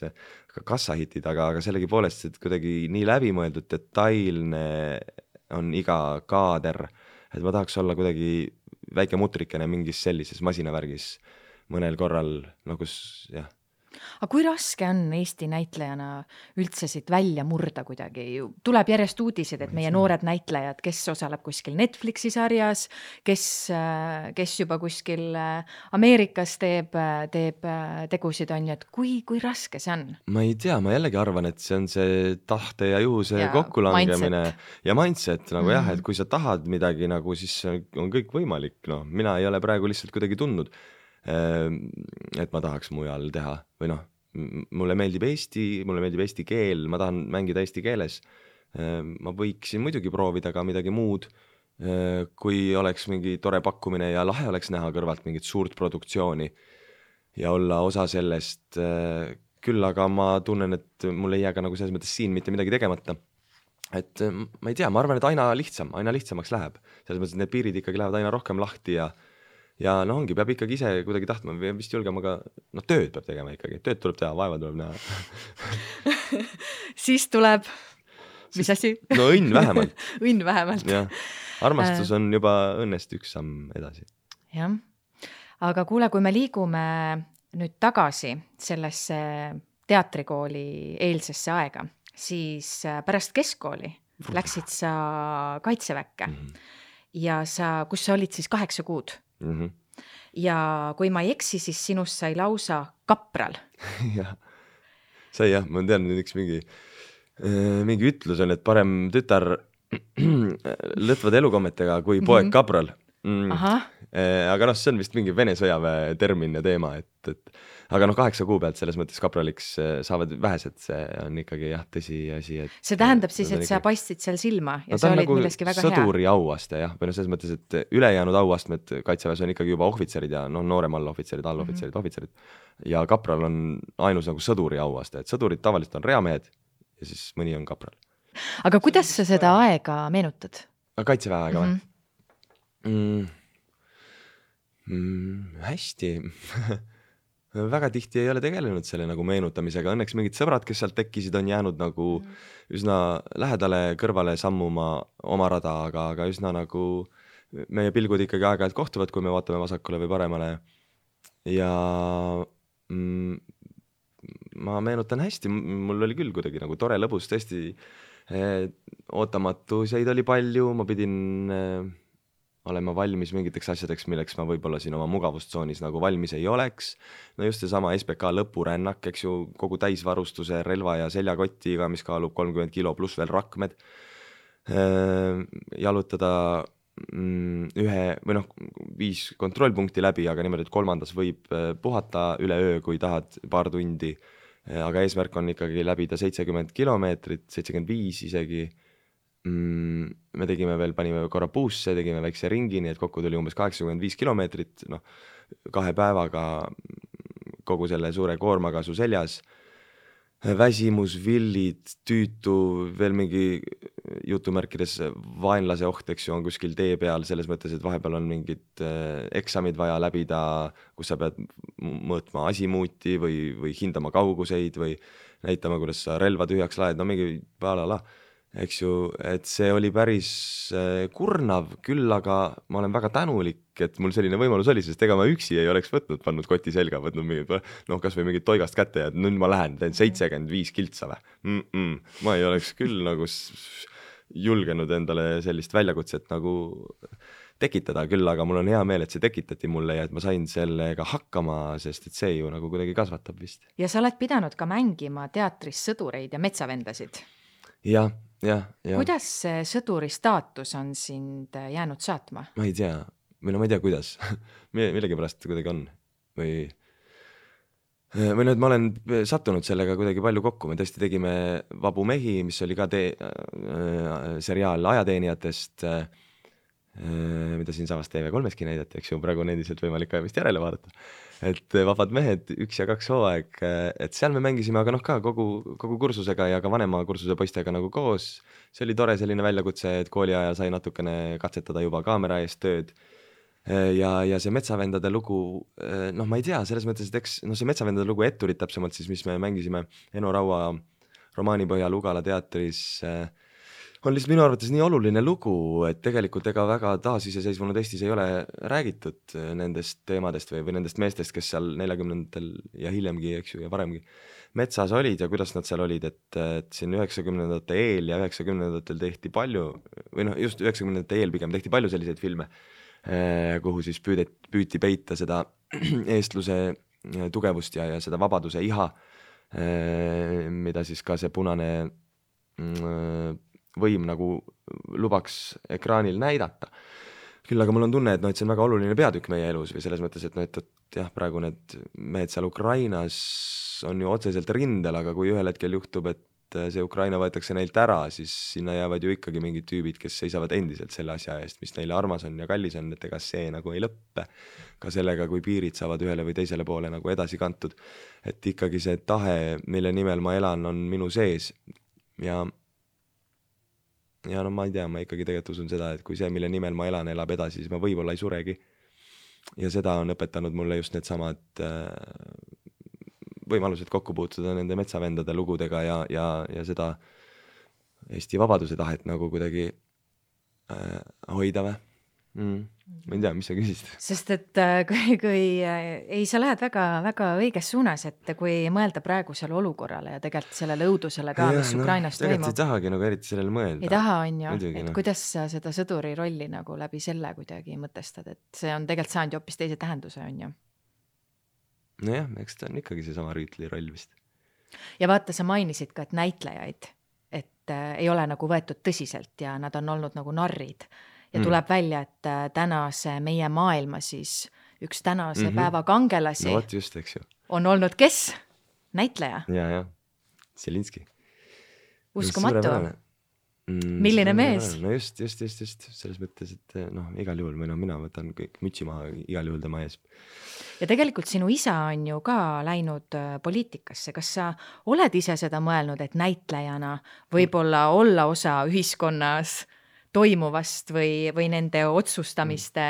kassahitid, aga sellegi poolest, et kuidagi nii läbimõeldud, detailne on iga kaader, et ma tahaks olla kuidagi väike mutrikene mingis sellises masinavärgis mõnel korral, no kus jah. Aga kui raske on Eesti näitlejana üldse siit välja murda kuidagi? Tuleb järjest uudisid, et meie noored näitlejad, kes osaleb kuskil Netflixi sarjas, kes juba kuskil Ameerikas teeb tegusid on, et kui raske see on? Ma ei tea, ma jällegi arvan, et see on see tahte ja juhuse kokkulangemine ja mindset nagu jah, et kui sa tahad midagi nagu, siis on kõik võimalik, no mina ei ole praegu lihtsalt kuidagi tundnud, et ma tahaks mujal teha või noh, mulle meeldib eesti keel, ma tahan mängida eesti keeles, ma võiksin muidugi proovida ka midagi muud, kui oleks mingi tore pakkumine ja lahe oleks näha kõrvalt mingit suurt produktsiooni ja olla osa sellest, küll aga ma tunnen, et mul ei jää ka nagu selles mõttes siin mitte midagi tegemata, et ma ei tea, ma arvan, et aina lihtsamaks läheb, selles mõttes, et need piirid ikkagi lähevad aina rohkem lahti ja no ongi, peab ikkagi ise kuidagi tahtma, vist julgema ka, no tööd peab tegema ikkagi, tööd tuleb teha, vaeva tuleb näha. Siis tuleb, mis asi? No õnn vähemalt. Õnn vähemalt. Ja, armastus on juba õnnest üks samm edasi. Jah, aga kuule, kui me liigume nüüd tagasi sellesse teatrikooli eelsesse aega, siis pärast keskkooli läksid sa Kaitseväkke ja kus sa olid siis 8 kuud. Ja kui ma ei eksi, siis sinust sai lausa kapral. Jah, sai jah, ma tean üks mingi ütlus on, et parem tütar lõtvad elukommetega kui poeg kapral. Aga noh, see on vist mingi Vene sõjaväe termin ja teema, et aga noh, 8 kuu pealt selles mõttes kapraliks saavad vähesed, see on ikkagi jah, tõsi asi. See tähendab siis, et sa paistsid seal silma ja sa olid milleski väga hea. Sõduri auaste jah, või no selles mõttes, et ülejäänud auastmed Kaitseväes on ikkagi juba ohvitserid ja noh, noorem allohvitserid, ohvitserid ja kapral on ainus nagu sõduri auaste, et sõdurid tavaliselt on reamehed ja siis mõni on kapral. Aga kuidas sa seda aega meenutad? Kaitseväe aega või? Hästi. Väga tihti ei ole tegelenud selle nagu meenutamisega. Õnneks mingid sõbrad, kes sealt tekkisid, on jäänud nagu üsna lähedale kõrvale sammuma oma rada, aga üsna nagu meie pilgud ikkagi aeg-ajalt kohtuvad, kui me vaatame vasakule või paremale ja ma meenutan hästi, mul oli küll kuidagi nagu tore lõbus, tõesti ootamatuseid oli palju, ma pidin olema valmis mingiteks asjadeks, milleks ma võib-olla siin oma mugavustsoonis nagu valmis ei oleks. No just seesama SBK lõpurännak, eks ju, kogu täisvarustuse, relva ja seljakotiga, mis kaalub 30 kilo pluss veel rakmed. Jalutada 5 kontrollpunkti läbi, aga niimoodi, et 3. võib puhata üle öö, kui tahad paar tundi. Aga eesmärk on ikkagi läbida 70 kilomeetrit, 75 isegi. Me tegime veel, panime korra buusse, tegime väikse ringi, nii et kokku tuli umbes 85 kilomeetrit, 2 päevaga kogu selle suure koormaga su seljas. Väsimus, villid, tüütu, veel mingi jutumärkides vaenlase oht, eks ju, on kuskil tee peal, selles mõttes, et vahepeal on mingid eksamid vaja läbida, kus sa pead mõõtma asimuuti või hindama kauguseid või näitama, kuidas sa relva tühjaks laed, no mingi palala. Eks ju, et see oli päris kurnav, küll aga ma olen väga tänulik, et mul selline võimalus oli, sest ega ma üksi ei oleks pannud koti selga, võtnud mingid, kas või mingid toigast kätte ja nüüd ma lähen, teen 75 kiltsa või. Ma ei oleks küll nagu julgenud endale sellist väljakutset nagu tekitada, küll aga mul on hea meel, et see tekitati mulle ja et ma sain sellega hakkama, sest et see ju nagu kuidagi kasvatab vist. Ja sa oled pidanud ka mängima teatris sõdureid ja metsavendasid. Ja. Kuidas see sõduri staatus on sind jäänud saatma? Ma ei tea, ma ei tea, kuidas. Millegi pärast kuidagi on. Või nüüd ma olen sattunud sellega kuidagi palju kokku. Me tõesti tegime Vabu mehi, mis oli ka seriaal ajateenijatest, mida siin samas TV3-ski näidati, eks ju, praegu on endiselt võimalik ka vist järele vaadata. Et Vabad mehed 1 ja 2 hooaeg, et seal me mängisime, aga ka kogu kursusega ja ka vanema kursuse poistega nagu koos. See oli tore selline väljakutse, et kooli ajal sai natukene katsetada juba kaamera eest tööd. Ja see metsavendade lugu, ma ei tea, selles mõttes, et eks see metsavendade lugu Etturid täpsemalt siis, mis me mängisime Eno Raua romaani põhjal Ugala teatris, on lihtsalt minu arvates nii oluline lugu, et tegelikult ega väga taasiseseisvunud Eestis ei ole räägitud nendest teemadest või nendest meestest, kes seal 40-ndatel ja hiljemgi, eks ju, ja varemgi metsas olid ja kuidas nad seal olid, et siin 90-ndate eel ja 90-ndatel tehti palju, või just 90-ndate eel pigem tehti palju selliseid filme, kuhu siis püüti peita seda eestluse tugevust ja seda vabaduse iha, mida siis ka see punane võim nagu lubaks ekraanil näidata. Küll aga mul on tunne, et see on väga oluline peatükk meie elus või selles mõttes, et jah, praegu need mehed seal Ukrainas on ju otseselt rindel, aga kui ühel hetkel juhtub, et see Ukraina võetakse neilt ära, siis sinna jäävad ju ikkagi mingid tüübid, kes seisavad endiselt selle asja eest, mis neile armas on ja kallis on, et ega see nagu ei lõppe. Ka sellega, kui piirid saavad ühele või teisele poole nagu edasi kantud. Et ikkagi see tahe, mille nimel ma elan, on minu sees ja ma ei tea, ma ikkagi tegelikult usun seda, et kui see, mille nimel ma elan, elab edasi, siis ma võib-olla ei suregi. Ja seda on õpetanud mulle just need samad võimalused kokku puutuda nende metsavendade lugudega ja seda Eesti vabaduse tahet nagu kuidagi hoida või. Ma ei tea, mis sa küsisid. Sest et kui sa lähed väga, väga õiges suunas, et kui mõelda praegusele olukorrale ja tegelikult sellele õudusele ka, mis Ukrainas toimub. Tegelikult ei tahagi nagu eriti sellele mõelda. Ei taha, on ju, et kuidas sa seda sõduri rolli nagu läbi selle kuidagi mõtestad, et see on tegelikult saanud ju hoopis teise tähenduse, on ju. Nojah, eks ta on ikkagi see sama rüütli roll vist. Ja vaata, sa mainisid ka, et näitlejaid, et ei ole nagu võetud tõsiselt ja nad on olnud nagu narrid. Ja tuleb välja, et tänase meie maailma siis üks tänase päeva kangelasi no, just, eks ju. On olnud kes? Näitleja. Ja. Selinski. Uskumatu. Milline mees? No just. Selles mõttes, et igal juhul mina võtan kõik mütsi maha igal juhul tema ees. Ja tegelikult sinu isa on ju ka läinud poliitikasse. Kas sa oled ise seda mõelnud, et näitlejana võib-olla olla osa ühiskonnas toimuvast või nende otsustamiste?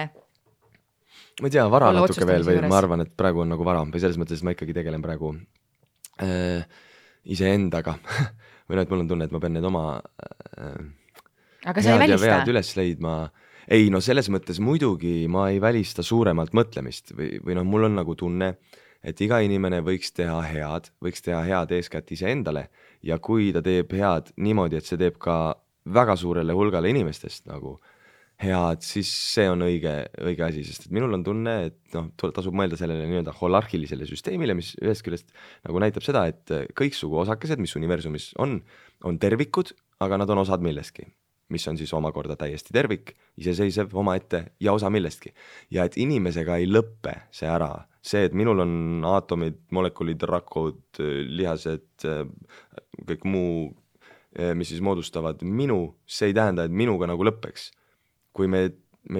Ma ei tea, vara natuke veel või ma arvan, et praegu on nagu vara või selles mõttes ma ikkagi tegelen praegu iseendaga või et mul on tunne, et ma pean need oma aga sa ei välista? vead üles leidma. ei no selles mõttes muidugi ma ei välista suuremalt mõtlemist või noh, mul on nagu tunne, et iga inimene võiks teha head eeskätt iseendale ja kui ta teeb head niimoodi, et see teeb ka väga suurele hulgale inimestest nagu head, siis see on õige asi, sest et minul on tunne, et noh, tasub mõelda sellele nii-öelda holarhilisele süsteemile, mis ühest küljest nagu näitab seda, et kõiksugu osakesed, mis universumis on tervikud, aga nad on osad millestki, mis on siis omakorda täiesti tervik, iseseisev omaette ja osa millestki. Ja et inimesega ei lõppe see ära. See, et minul on aatomid, molekulid, rakud, lihased, kõik muu, mis siis moodustavad minu, see ei tähenda, et minuga nagu lõppeks. Kui meil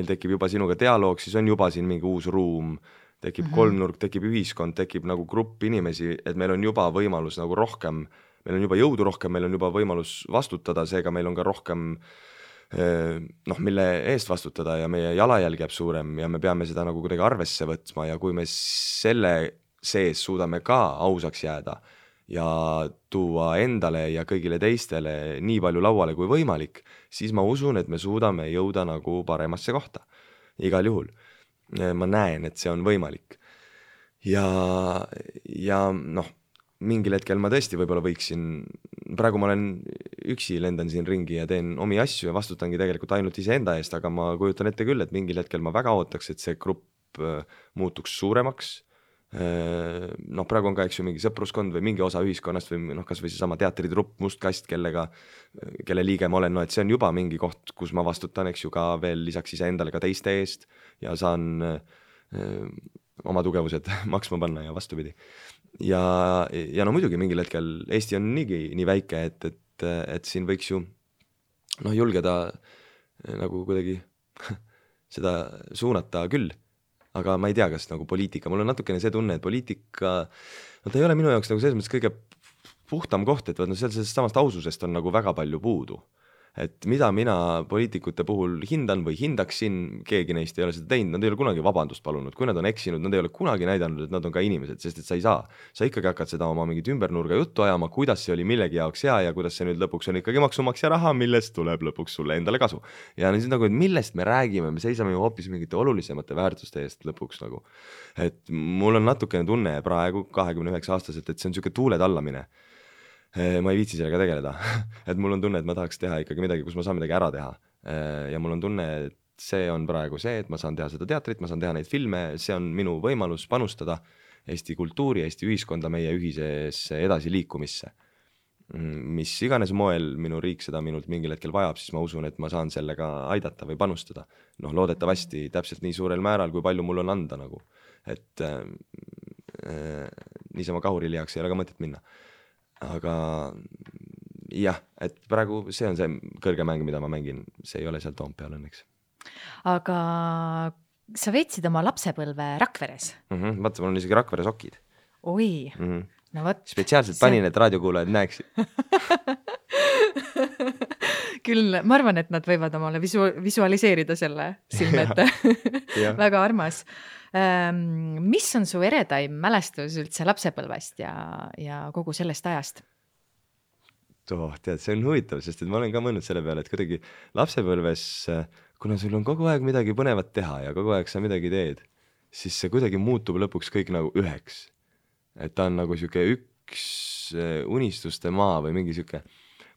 tekib juba sinuga dialoog, siis on juba siin mingi uus ruum, tekib kolmnurk, tekib ühiskond, tekib nagu grupp inimesi, et meil on juba võimalus nagu rohkem, meil on juba jõudu rohkem, meil on juba võimalus vastutada, seega meil on ka rohkem mille eest vastutada ja meie jalajälg jääb suurem ja me peame seda nagu kuidagi arvesse võtma ja kui me selle sees suudame ka ausaks jääda ja tuua endale ja kõigile teistele nii palju lauale kui võimalik, siis ma usun, et me suudame jõuda nagu paremasse kohta. Igal juhul. Ma näen, et see on võimalik. Ja noh, mingil hetkel ma tõesti võib-olla võiksin, praegu ma olen üksi, lendan siin ringi ja teen omi asju ja vastutangi tegelikult ainult iseenda eest, aga ma kujutan ette küll, et mingil hetkel ma väga ootaks, et see grupp muutuks suuremaks. Noh, praegu on ka eks ju mingi sõpruskond või mingi osa ühiskonnast või noh, kas või seesama teatritrupp Must Kast, kelle liige ma olen, no et see on juba mingi koht, kus ma vastutan, eks ju, ka veel lisaks iseendale ka teiste eest ja saan oma tugevused maksma panna ja vastupidi. Ja no muidugi mingil hetkel Eesti on nii väike, et siin võiks ju noh, julgeda nagu kuidagi seda suunata küll. Aga ma ei tea, kas nagu poliitika, mul on natukene see tunne, et poliitika, no ta ei ole minu jaoks nagu selles mõttes kõige puhtam koht, et no sellest samast aususest on nagu väga palju puudu. Et mida mina poliitikute puhul hindan või hindaksin, keegi neist ei ole seda teinud, nad ei ole kunagi vabandust palunud, kui nad on eksinud, nad ei ole kunagi näidanud, et nad on ka inimesed, sest et sa ikkagi hakkad seda oma mingit ümbernurga juttu ajama, kuidas see oli millegi jaoks hea ja kuidas see nüüd lõpuks on ikkagi maksumaksja raha, millest tuleb lõpuks sulle endale kasu. Ja siis nagu, et millest me räägime, me seisame ju hoopis mingite olulisemate väärtuste eest lõpuks nagu. Et mul on natukene tunne praegu 29-aastaselt, et see on siuke tuule tallamine. Ma ei viitsi sellega tegeleda, et mul on tunne, et ma tahaks teha ikkagi midagi, kus ma saan midagi ära teha ja mul on tunne, et see on praegu see, et ma saan teha seda teatrit, ma saan teha neid filme, see on minu võimalus panustada Eesti kultuuri, Eesti ühiskonda, meie ühisesse edasiliikumisse. Mis iganes moel minu riik seda minult mingil hetkel vajab, siis ma usun, et ma saan sellega aidata või panustada. Noh, loodetavasti täpselt nii suurel määral, kui palju mul on anda nagu, et niisama kahurilihaks ei ole ka mõtet minna. Aga jah, et praegu see on see kõrge mäng, mida ma mängin, see ei ole seal Toompeal õnneks. Aga sa veetsid oma lapsepõlve Rakveres? Vaata, mul on isegi Rakvere sokid. Oi, no võt. Spetsiaalselt panin, et raadiokuulajad näeksid. Küll, ma arvan, et nad võivad omale visualiseerida selle silmete. Väga armas. Mis on su eredaim mälestus üldse lapsepõlvest ja kogu sellest ajast? Tead, see on huvitav, sest et ma olen ka mõelnud selle peale, et kuidagi lapsepõlves, kuna sul on kogu aeg midagi põnevat teha ja kogu aeg sa midagi teed, siis see kuidagi muutub lõpuks kõik nagu üheks. Et ta on nagu siuke üks unistuste maa või mingi siuke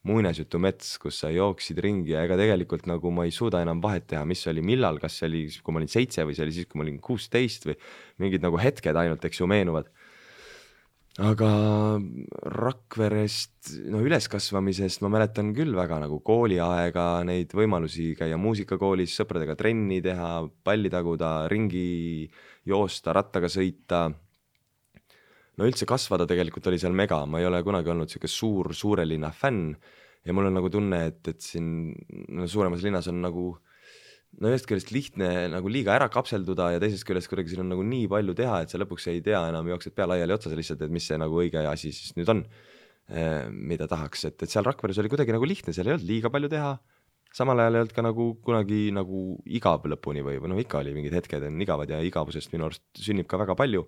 muinasjutu mets, kus sa jooksid ringi ja ega tegelikult nagu ma ei suuda enam vahet teha, mis oli millal, kas see oli, kui ma olin 7 või see oli siis, kui ma olin 16 või mingid nagu hetked ainult, eks ju, meenuvad. Aga Rakverest, no üleskasvamisest ma mäletan küll väga nagu kooliaega, neid võimalusi käia muusikakoolis, sõpradega trenni teha, palli taguda, ringi joosta, rattaga sõita. No üldse kasvada tegelikult oli seal mega, ma ei ole kunagi olnud siuke suure linna fänn ja mul on nagu tunne, et siin suuremas linnas on nagu no ühest küljest lihtne nagu liiga ära kapselduda ja teisest küljest kuidagi siin on nagu nii palju teha, et sa lõpuks ei tea enam, jooksed pea laiali otsas lihtsalt, et mis see nagu õige asi siis nüüd on, mida tahaks, et seal Rakveres oli kuidagi nagu lihtne, seal ei olnud liiga palju teha, samal ajal ei olnud ka nagu kunagi nagu igav lõpuni või no ikka oli mingid hetked on igavad ja igavusest minu arust sünnib ka väga palju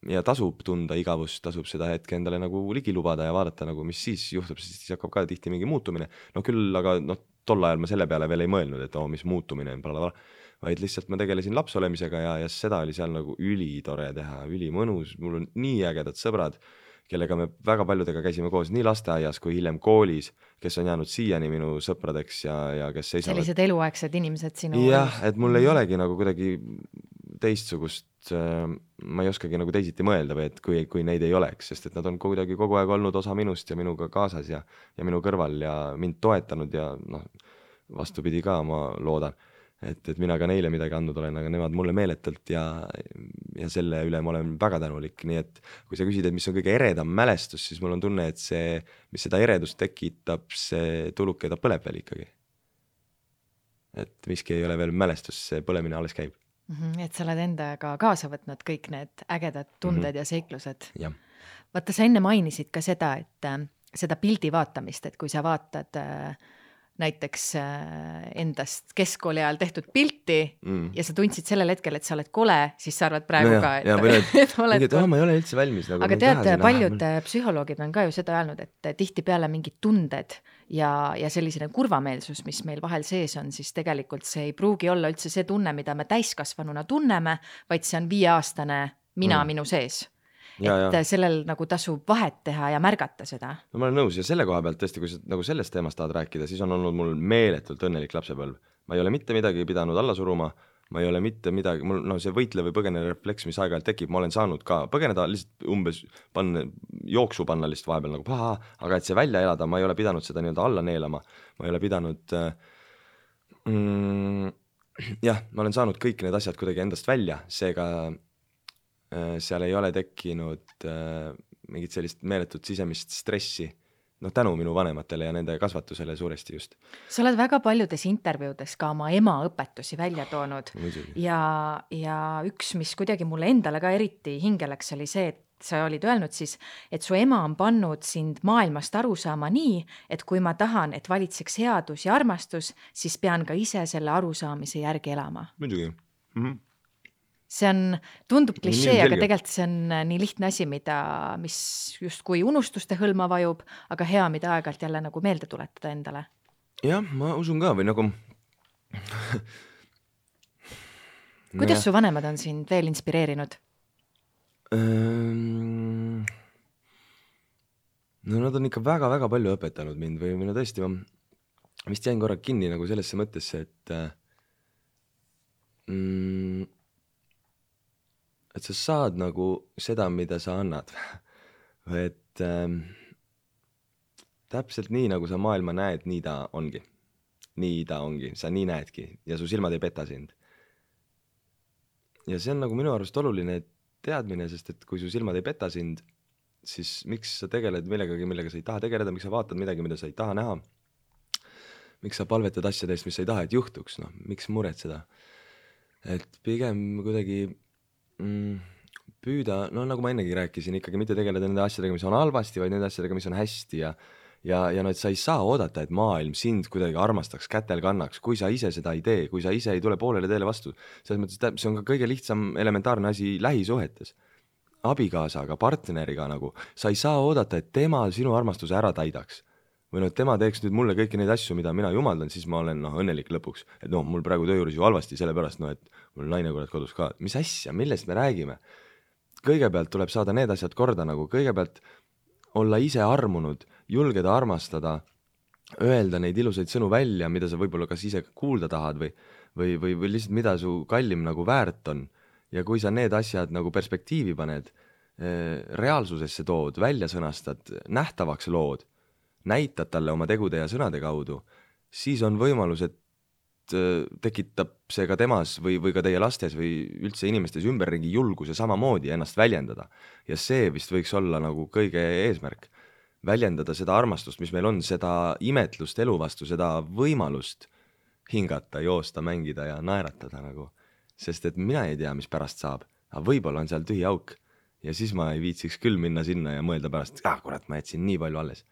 ja tasub tunda igavust, tasub seda hetke endale nagu ligi lubada ja vaadata nagu, mis siis juhtub, siis hakkab ka tihti mingi muutumine. No küll, aga tol ajal ma selle peale veel ei mõelnud, et mis muutumine on, blablabla, vaid lihtsalt ma tegelesin laps olemisega ja seda oli seal nagu ülitore teha, ülimõnus, mul on nii ägedad sõbrad, kellega me väga paljudega käisime koos nii lasteaias kui hiljem koolis, kes on jäänud siiani minu sõpradeks ja kes seisavad. Sellised eluaegsed inimesed sinu jah, et mul ei olegi nagu kuidagi teistsugust, ma ei oskagi nagu teisiti mõelda või et kui neid ei oleks, sest et nad on kuidagi kogu aeg olnud osa minust ja minuga kaasas ja minu kõrval ja mind toetanud ja vastupidi ka, ma loodan, et mina ka neile midagi andnud olen, aga nemad mulle meeletult ja selle üle ma olen väga tänulik, nii et kui sa küsid, et mis on kõige eredam mälestus, siis mul on tunne, et see, mis seda eredust tekitab, see tuluke, ta põleb veel ikkagi. Et miski ei ole veel mälestus, see põlemine alles käib. Et sa oled endaga kaasa võtnud kõik need ägedad tunded ja seiklused. Ja. Vaata, sa enne mainisid ka seda, et seda pildi vaatamist, et kui sa vaatad näiteks endast keskkooli ajal tehtud pilti ja sa tundsid sellel hetkel, et sa oled kole, siis sa arvad praegu ka, et oled kole. Ma ei ole üldse valmis. Nagu aga tead, paljud psühholoogid on ka ju seda öelnud, et tihti peale mingid tunded ja sellisene kurvameelsus, mis meil vahel sees on, siis tegelikult see ei pruugi olla üldse see tunne, mida me täiskasvanuna tunneme, vaid see on 5-aastane mina minu sees. Et sellel nagu tasub vahet teha ja märgata seda. No ma olen nõus ja selle koha pealt tõesti, kui sa nagu sellest teemast tahad rääkida, siis on olnud mul meeletult õnnelik lapsepõlv. Ma ei ole mitte midagi pidanud alla suruma, ma ei ole mitte midagi, mul see võitle või põgene refleks, mis aeg-ajalt tekib, ma olen saanud ka põgeneda lihtsalt umbes jooksu panna lihtsalt vahepeal nagu paha, aga et see välja elada, ma ei ole pidanud seda nii-öelda alla neelama, ma ei ole pidanud ma olen saanud kõik need asjad kuidagi endast välja, seega seal ei ole tekkinud mingit sellist meeletut sisemist stressi, tänu minu vanematele ja nende kasvatusele suuresti just. Sa oled väga paljudes intervjuudes ka oma ema õpetusi välja toonud ja üks, mis kuidagi mulle endale ka eriti hingeleks, oli see, et sa olid öelnud siis, et su ema on pannud sind maailmast aru saama nii, et kui ma tahan, et valitseks headus ja armastus, siis pean ka ise selle arusaamise järgi elama. Muidugi. See tundub klišee, aga tegelikult see on nii lihtne asi, mis just kui unustuste hõlma vajub, aga hea, mida aeg-ajalt jälle nagu meelde tuletada endale. Jah, ma usun ka või nagu... Kuidas su vanemad on sind veel inspireerinud? Nad on ikka väga-väga palju õpetanud mind või tõesti, ma vist jäin korra kinni nagu sellesse mõttesse, et sa saad nagu seda, mida sa annad. Et täpselt nii, nagu sa maailma näed, nii ta ongi. Nii ta ongi, sa nii näedki ja su silmad ei peta sind. Ja see on nagu minu arust oluline teadmine, sest et kui su silmad ei peta sind, siis miks sa tegeled millegagi, millega sa ei taha tegeleda, miks sa vaatad midagi, mida sa ei taha näha, miks sa palvetad asjadest, mis sa ei taha, et juhtuks, miks muretseda. Et pigem kuidagi püüda, nagu ma ennegi rääkisin, ikkagi mitte tegeleda nende asjadega, mis on halvasti, vaid nende asjadega, mis on hästi ja et sa ei saa oodata, et maailm sind kuidagi armastaks, kätel kannaks, kui sa ise seda ei tee, kui sa ise ei tule poolele teele vastu. Selles mõttes, see on ka kõige lihtsam elementaarne asi lähisuhetes. Abikaasaga, partneriga nagu, sa ei saa oodata, et tema sinu armastuse ära täidaks. Või et tema teeks nüüd mulle kõiki neid asju, mida mina jumaldan, siis ma olen õnnelik lõpuks. Et mul praegu töö juures ju halvasti, sellepärast, et mul naine kurat kodus ka. Mis asja, millest me räägime? Kõigepealt tuleb saada need asjad korda nagu, kõigepealt olla ise armunud, julgeda armastada, öelda neid ilusaid sõnu välja, mida sa võib-olla kas ise kuulda tahad või lihtsalt mida su kallim nagu väärt on. Ja kui sa need asjad nagu perspektiivi paned, reaalsusesse tood, välja sõnastad, nähtavaks lood, näitad talle oma tegude ja sõnade kaudu, siis on võimalus, et tekitab see ka temas või ka teie lastes või üldse inimestes ümberringi julguse samamoodi ennast väljendada. Ja see vist võiks olla nagu kõige eesmärk. Väljendada seda armastust, mis meil on, seda imetlust elu vastu, seda võimalust hingata, joosta, mängida ja naeratada nagu. Sest et mina ei tea, mis pärast saab, aga võib-olla on seal tühi auk ja siis ma ei viitsiks küll minna sinna ja mõelda pärast, kurat, ma jätsin nii palju alles.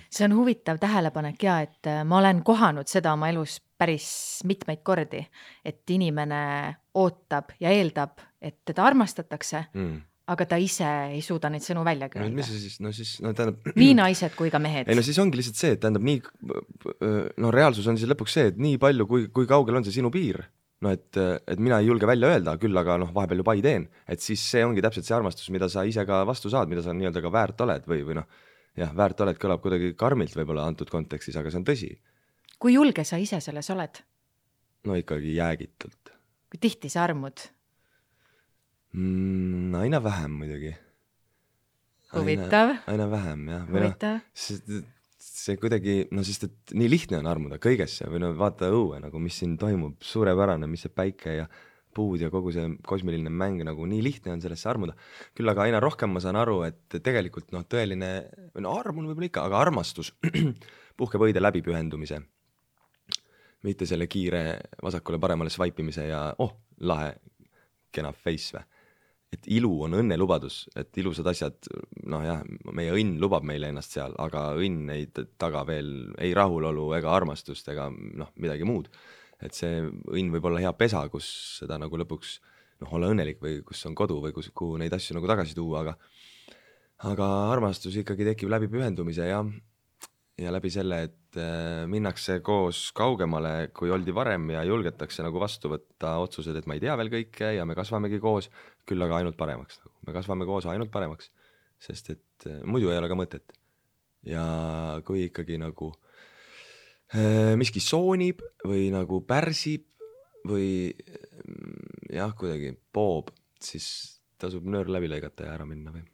See on huvitav tähelepanek ja, et ma olen kohanud seda oma elus päris mitmeid kordi, et inimene ootab ja eeldab, et teda armastatakse, aga ta ise ei suuda neid sõnu välja no mis öelda. see siis, no siis, no tähendab, Nii naised kui ka mehed. ei no siis ongi lihtsalt see, et tähendab nii, no reaalsus on siis lõpuks see, et nii palju, kui kaugel on see sinu piir, no et mina ei julge välja öelda, küll aga noh, vahepeal ju pai teen, et siis see ongi täpselt see armastus, mida sa ise ka vastu saad, mida sa nii-öelda ka väärt oled või noh, jah, väärt oled kõlab kuidagi karmilt võib-olla antud kontekstis, aga see on tõsi. Kui julge sa ise selles oled? No ikkagi jäägitult. Kui tihti sa armud? Aina vähem muidugi. Huvitav. Aina vähem, jah. Huvitav. See kuidagi, no sest et nii lihtne on armuda kõigesse või no vaata õue, nagu mis siin toimub, suurepärane, mis see päike ja puud ja kogu see kosmiline mäng, nagu nii lihtne on sellesse armuda. Küll aga aina rohkem ma saan aru, et tegelikult noh, tõeline, no armun võib-olla ikka, aga armastus puhkeb õide läbipühendumise. Mitte selle kiire vasakule paremale swipimise ja lahe, kena face või. Et ilu on õnnelubadus, et ilusad asjad, noh jah, meie õnn lubab meile ennast seal, aga õnn ei taga veel ei rahulolu ega armastust ega noh, midagi muud. Et see õnn võib olla hea pesa, kus seda nagu lõpuks noh, olla õnnelik või kus on kodu või kuhu neid asju nagu tagasi tuua, aga armastus ikkagi tekib läbi pühendumise ja läbi selle, et minnakse koos kaugemale, kui oldi varem ja julgetakse nagu vastu võtta otsused, et ma ei tea veel kõike ja me kasvamegi koos, küll aga ainult paremaks. Me kasvame koos ainult paremaks, sest et muidu ei ole ka mõtet. Ja kui ikkagi nagu miski soonib või nagu pärsib või jah, kuidagi poob, siis tasub nöör läbi lõigata ja ära minna või.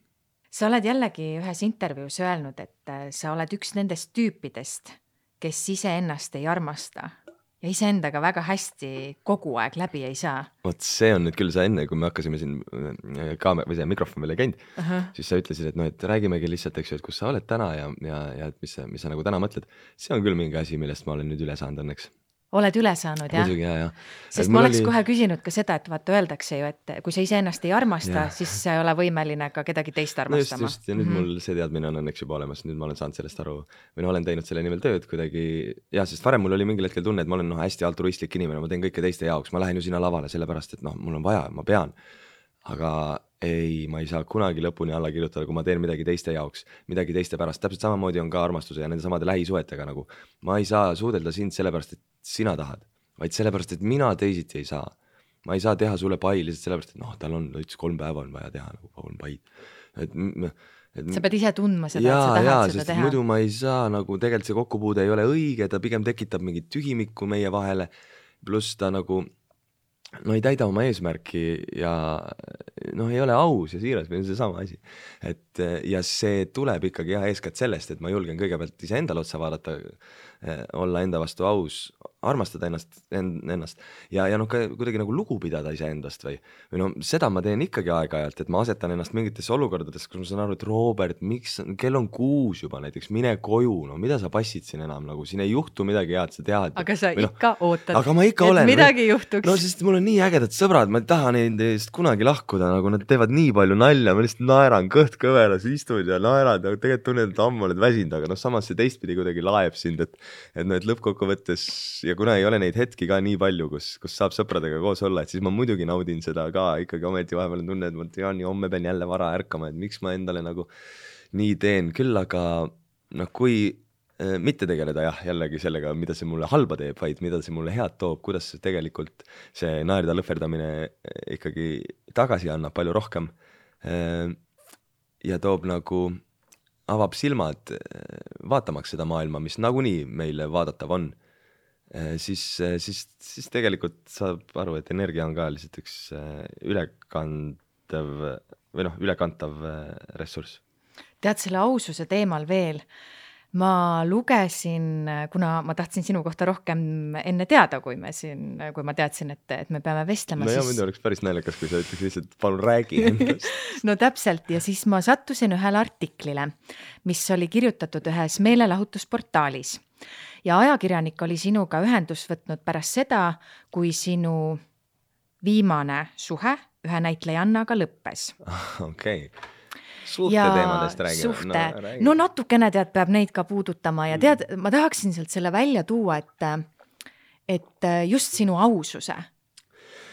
Sa oled jällegi ühes intervjuus öelnud, et sa oled üks nendest tüüpidest, kes ise ennast ei armasta ja ise endaga väga hästi kogu aeg läbi ei saa. Vot see on nüüd küll sa enne, kui me hakkasime siin või see mikrofon veel ei käinud, siis sa ütlesid, et, no, et räägimegi lihtsalt, eks ju, et kus sa oled täna ja et mis sa nagu täna mõtled. See on küll mingi asi, millest ma olen nüüd üle saanud õnneks. Oled üle saanud, jah? Muidugi, jah. Sest ma oleks kohe küsinud ka seda, et vaata öeldakse ju, et kui sa ise ennast ei armasta, siis sa ei ole võimeline ka kedagi teist armastama. No just, ja nüüd mul see teadmine on õnneks juba olemas, nüüd ma olen saanud sellest aru või olen teinud selle nimel tööd kuidagi, sest varem mul oli mingil hetkel tunne, et ma olen hästi altruistlik inimene, ma teen kõike teiste jaoks, ma lähen ju sinna lavale sellepärast, et mul on vaja, ma pean, aga ei, ma ei saa kunagi lõpuni alla kirjutada, kui ma teen midagi teiste jaoks, midagi teiste pärast, täpselt samamoodi on ka armastuse ja nende samade lähisuhetega nagu, ma ei saa suudelda sind sellepärast, et sina tahad, vaid sellepärast, et mina teisiti ei saa. Ma ei saa teha sulle pai lihtsalt sellepärast, et tal on 3 päeva on vaja teha nagu 3 paid. Sa pead ise tundma seda, et sa tahad seda teha. Muidu ma ei saa, nagu tegelikult see kokkupuude ei ole õige, ta pigem tekitab mingit tühimikku meie vahele, pluss ta nagu ei täida oma eesmärki ja ei ole aus ja siiras või see sama asi. Ja see tuleb ikkagi eeskätt sellest, et ma julgen kõigepealt ise endale otsa vaadata, olla enda vastu aus, armastada ennast ja ka kuidagi nagu lugu pidada ise endast või seda ma teen ikkagi aeg-ajalt, et ma asetan ennast mingitesse olukordades, kus ma saan aru, et Robert, miks, kell on 6 juba näiteks, mine koju, mida sa passid siin enam, nagu siin ei juhtu midagi head, sa tead. Aga sa ikka ootad, aga ma ikka olen, midagi juhtuks. No sest mul on nii ägedad sõbrad, ma ei taha neist kunagi lahkuda, nagu nad teevad nii palju nalja, ma lihtsalt naeran, kõht kõveras, istud ja naerad ja tegelikult tunned, et ammu oled väsinud, aga samas see teistpidi kuidagi laeb sind, et lõppkokkuvõttes ja kuna ei ole neid hetki ka nii palju, kus saab sõpradega koos olla, et siis ma muidugi naudin seda ka ikkagi ometi vahepeal tunne, et ma tean, homme pean jälle vara ärkama, et miks ma endale nagu nii teen, küll aga kui mitte tegeleda jällegi sellega, mida see mulle halba teeb, vaid mida see mulle head toob, kuidas see tegelikult see naerda lõhverdamine ikkagi tagasi annab palju rohkem ja toob nagu avab silmad vaatamaks seda maailma, mis nagunii meile vaadatav on, siis tegelikult saab aru, et energia on ka lihtsalt üks ülekantav ressurss. Tead selle aususe teemal veel, ma lugesin, kuna ma tahtsin sinu kohta rohkem enne teada, kui ma teadsin, et me peame vestlema. No siis... oleks päris naljakas, kui sa ütleks lihtsalt, palun räägi endast. No täpselt, ja siis ma sattusin ühele artiklile, mis oli kirjutatud ühes meelelahutusportaalis. Ja ajakirjanik oli sinuga ühendust võtnud pärast seda, kui sinu viimane suhe ühe näitlejannaga lõppes. Okei. Suhte teemadest räägime. No natukene peab neid ka puudutama ja ma tahaksin sealt selle välja tuua, et just sinu aususe.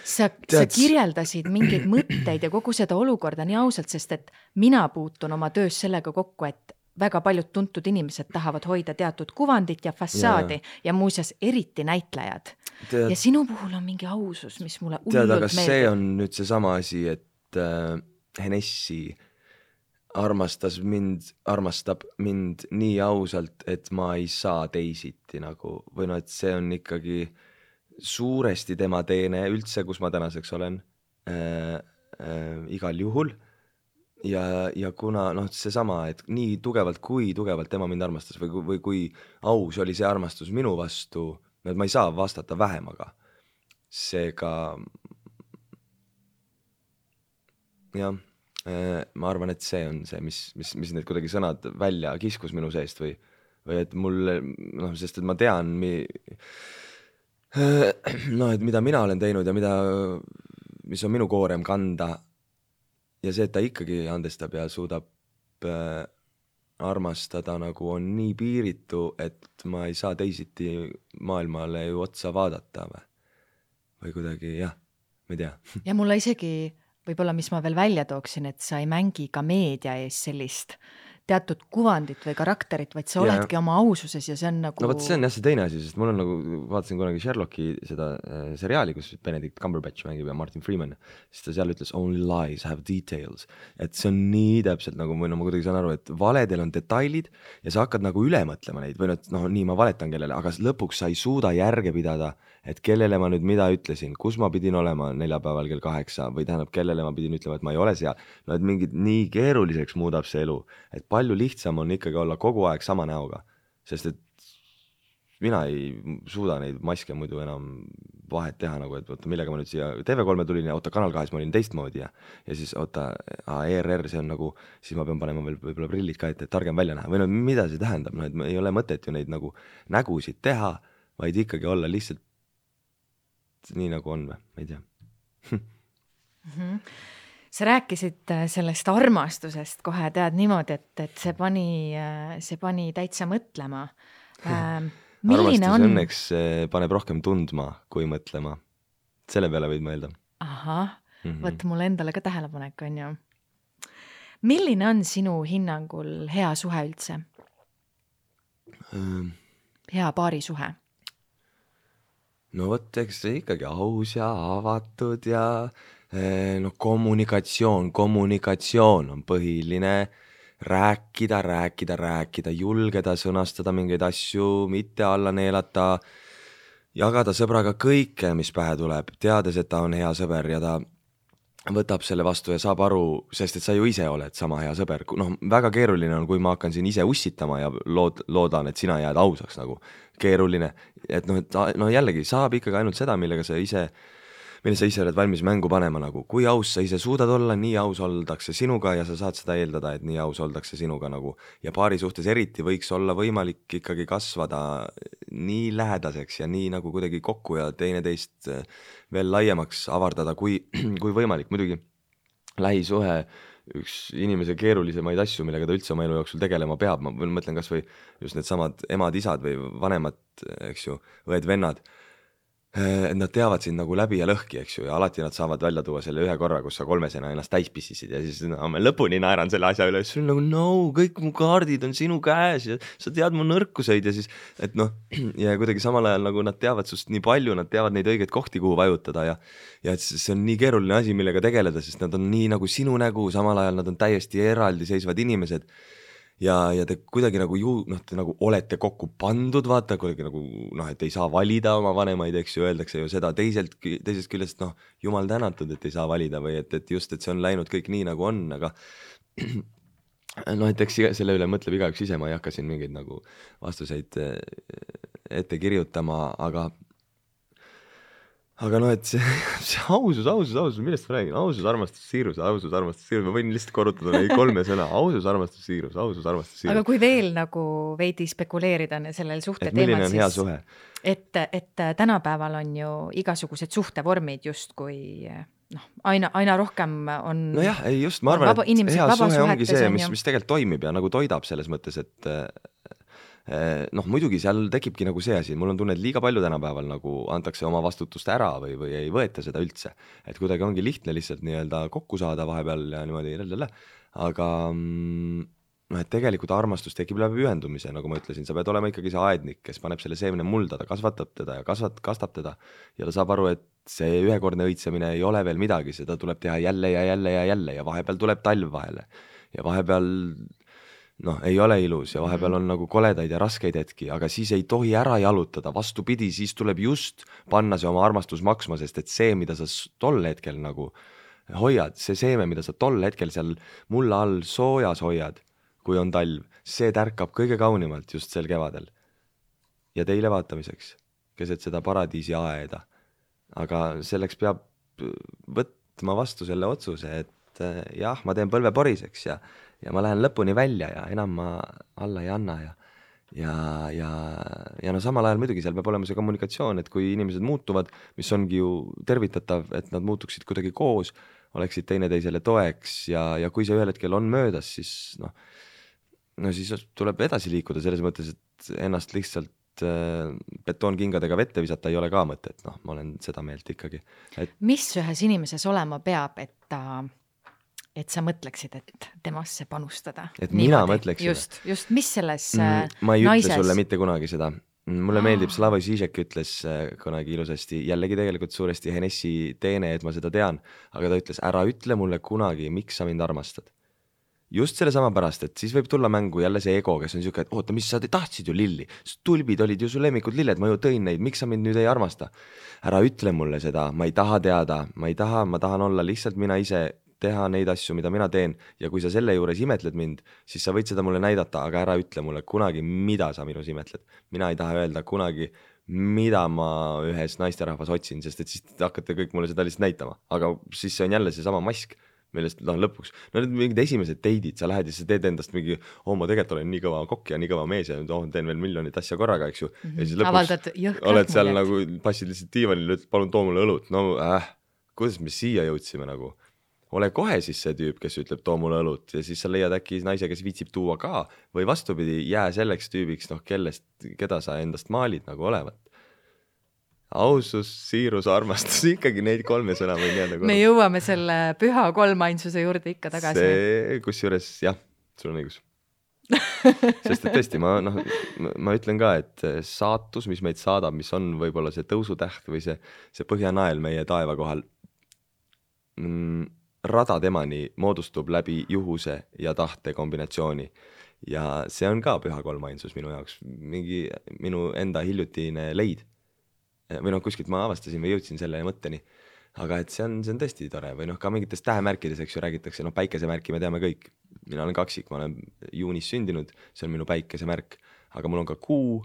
sa kirjeldasid mingeid mõtteid ja kogu seda olukorda nii ausalt, sest et mina puutun oma töös sellega kokku, et väga paljud tuntud inimesed tahavad hoida teatud kuvandit ja fassaadi ja muuseas eriti näitlejad. Ja sinu puhul on mingi ausus, mis mulle hullult aga meeldib. see on nüüd see sama asi, et Henessi armastab mind nii ausalt, et ma ei saa teisiti nagu, või no, et see on ikkagi suuresti tema teene üldse, kus ma tänaseks olen igal juhul. Ja kuna seesama, et nii tugevalt, kui tugevalt tema mind armastas või kui aus oli see armastus minu vastu, et ma ei saa vastata vähemaga. Seega jah, ma arvan, et see on see, mis need kuidagi sõnad välja kiskus minu seest või et mul, sest et ma tean, et mida mina olen teinud ja mis on minu koorem kanda. Ja see, et ta ikkagi andestab ja suudab armastada nagu on nii piiritu, et ma ei saa teisiti maailmale ju otsa vaadata või kuidagi, jah, ma ei tea. Ja mulle isegi, võib-olla mis ma veel välja tooksin, et sa ei mängi ka meedia ees sellist teatud kuvandit või karakterit, vaid sa oledki oma aususes ja see on nagu... No võt, see on jah see teine asi, sest mul on nagu, vaatasin kunagi Sherlocki seda seriaali, kus Benedict Cumberbatch mängib ja Martin Freeman, siis ta seal ütles only lies have details, et see on nii täpselt nagu, või ma kuidagi saan aru, et valedel on detailid ja sa hakkad nagu üle mõtlema neid või nii ma valetan kellele, aga lõpuks sa ei suuda järge pidada, et kellele ma nüüd mida ütlesin, kus ma pidin olema neljapäeval kell 8 või tähendab, kellele ma pidin ütlema, et ma ei ole seal, et mingid nii keeruliseks muudab see elu, et palju lihtsam on ikkagi olla kogu aeg sama näoga, sest et mina ei suuda neid maske muidu enam vahet teha nagu, et oota, millega ma nüüd siia TV3 tulin ja oota, Kanal 2 ma olin teistmoodi ja siis oota, ERR, see on nagu, siis ma pean panema veel võib-olla prillid ka, et targem välja näha või mida see tähendab, et ei ole mõtet ju neid nagu nägusid teha, vaid ikkagi olla lihtsalt nii nagu on või, ma ei tea. Sa rääkisid sellest armastusest kohe, tead niimoodi, et see pani täitsa mõtlema. Armastus õnneks paneb rohkem tundma kui mõtlema. Selle peale võid mõelda. Ahah, võt mul endale ka tähelepanek on ju. Milline on sinu hinnangul hea suhe üldse? Hea paarisuhe? No võt, eks see ikkagi aus ja avatud ja kommunikatsioon on põhiline, rääkida, julgeda sõnastada mingeid asju, mitte alla neelata, jagada sõbraga kõike, mis pähe tuleb, teades, et ta on hea sõber ja ta võtab selle vastu ja saab aru, sest et sa ju ise oled sama hea sõber. Väga keeruline on, kui ma hakkan siin ise ussitama ja loodan, et sina jääd ausaks nagu keeruline, et jällegi saab ikkagi ainult seda, mille sa ise oled valmis mängu panema nagu, kui aus sa ise suudad olla, nii aus oldakse sinuga ja sa saad seda eeldada, et nii aus oldakse sinuga nagu ja paari suhtes eriti võiks olla võimalik ikkagi kasvada nii lähedaseks ja nii nagu kuidagi kokku ja teineteist veel laiemaks avardada, kui võimalik. Muidugi lähisuhe üks inimese keerulisemaid asju, millega ta üldse oma elu jooksul tegelema peab, ma mõtlen kas või just need samad emad, isad või vanemad, eks ju, õed, vennad, et nad teavad sind nagu läbi ja lõhki, eks ju, ja alati nad saavad välja tuua selle ühe korra, kus sa kolmesena ennast täispissisid ja siis ma lõpuni naeran selle asja üle, siis on nagu kõik mu kaardid on sinu käes ja sa tead mu nõrkuseid ja siis, et ja kuidagi samal ajal nagu nad teavad sust nii palju, nad teavad neid õigeid kohti, kuhu vajutada ja et see on nii keeruline asi, millega tegeleda, sest nad on nii nagu sinu nägu, samal ajal nad on täiesti eraldiseisvad inimesed ja te kuidagi nagu te nagu olete kokku pandud, vaata, kuidagi nagu et ei saa valida oma vanemaid, eks ju, öeldakse ju seda teisest küljest, jumal tänatud, et ei saa valida või et just, et see on läinud kõik nii nagu on, aga et eks selle üle mõtleb igaüks ise, ma ei hakka siin mingeid nagu vastuseid ette kirjutama, aga et see ausus, millest ma räägin? Ausus, armastus, siirus, ma võin lihtsalt korrutada neid 3 sõna. Ausus, armastus, siirus. Aga kui veel nagu veidi spekuleerida sellel suhte teemal, milline on hea suhe? Et tänapäeval on ju igasugused suhtevormid just kui aina rohkem on... No jah, ei just, ma arvan, et hea suhe ongi see, mis tegelikult toimib ja nagu toidab selles mõttes, Noh, muidugi seal tekibki nagu see asi, mul on tunne, et liiga palju tänapäeval nagu antakse oma vastutust ära või ei võeta seda üldse. Et kuidagi ongi lihtne lihtsalt nii-öelda kokku saada vahepeal ja niimoodi aga noh, et tegelikult armastus tekib läbi ühendumise, nagu ma ütlesin, sa pead olema ikkagi see aednik, kes paneb selle seemne mulda, ta kasvatab teda ja kastab teda ja ta saab aru, et see ühekordne õitsemine ei ole veel midagi, seda tuleb teha jälle ja jälle ja jälle ja vahepeal tuleb talv vahele ja vahepeal noh, ei ole ilus ja vahepeal on nagu koledaid ja raskeid hetki, aga siis ei tohi ära jalutada, vastupidi, siis tuleb just panna see oma armastus maksma, sest et see, mida sa tol hetkel nagu hoiad, see seeme, mida sa tol hetkel seal mulla all soojas hoiad, kui on talv, see tärkab kõige kaunimalt just sel kevadel. Ja teile vaatamiseks, keset seda paradiisi aeda. Aga selleks peab võtma vastu selle otsuse, et jah, ma teen põlve poriseks ja ma lähen lõpuni välja ja enam ma alla ei anna ja no samal ajal muidugi seal peab olema see kommunikatsioon, et kui inimesed muutuvad, mis ongi ju tervitatav, et nad muutuksid kuidagi koos, oleksid teineteisele toeks ja kui see ühel hetkel on möödas, siis no siis tuleb edasi liikuda selles mõttes, et ennast lihtsalt betoonkingadega vette visata ei ole ka mõtet, noh, ma olen seda meelt ikkagi. Mis ühes inimeses olema peab, et sa mõtleksid, et temasse panustada? Et mina mõtleksin? Just, mis selles ma ei naises? Ütle sulle mitte kunagi seda. Mulle meeldib, Slavoj Žižek ütles kunagi ilusasti, jällegi tegelikult suuresti Henessi teene, et ma seda tean, aga ta ütles, ära ütle mulle kunagi, miks sa mind armastad. Just selle sama pärast, et siis võib tulla mängu jälle see ego, kes on siuke, et oota, mis sa tahtsid ju lilli, tulbid olid ju su lemmikud lilled, ma ju tõin neid, miks sa mind nüüd ei armasta? Ära ütle mulle seda, ma ei taha teada, ma tahan olla lihtsalt mina ise, teha neid asju, mida mina teen ja kui sa selle juures imetled mind, siis sa võid seda mulle näidata, aga ära ütle mulle kunagi, mida sa minus imetled. Mina ei taha öelda kunagi, mida ma ühes naisterahvas otsin, sest et siis hakkate kõik mulle seda lihtsalt näitama, aga siis see on jälle see sama mask, millest lõpuks, no need mingid esimesed teidid, sa lähed ja sa teed endast mingi, ma tegelikult olen nii kõva kokk ja nii kõva mees ja teen veel miljonit asja korraga, eks ju. Ja siis lõpuks oled seal nagu, passid lihtsalt diivanil, ütled, palun too mulle õlut, no kuidas me siia jõudsime nagu? Ole kohe siis see tüüp, kes ütleb, too mulle õlut ja siis sa leiad äkki naise, kes viitsib tuua ka või vastupidi, jää selleks tüübiks, noh, keda sa endast maalid nagu olevat. Ausus, siirus, armastus, ikkagi neid kolme sõna võin jääda korda. Me jõuame selle püha kolmainsuse juurde ikka tagasi. See, kusjuures, jah, sul on õigus. Sest et tõesti, ma ütlen ka, et saatus, mis meid saadab, mis on võib-olla see tõusutäht või see põhjanael meie taeva kohal, rada temani moodustub läbi juhuse ja tahte kombinatsiooni ja see on ka püha kolmainsus minu jaoks, minu enda hiljutine leid või kuskilt ma avastasin või jõudsin selle mõtteni, aga et see on tõesti tore või ka mingites tähemärkides, eks ju, räägitakse, päikesemärki me teame kõik, mina olen kaksik, ma olen juunis sündinud, see on minu päikesemärk, aga mul on ka kuu,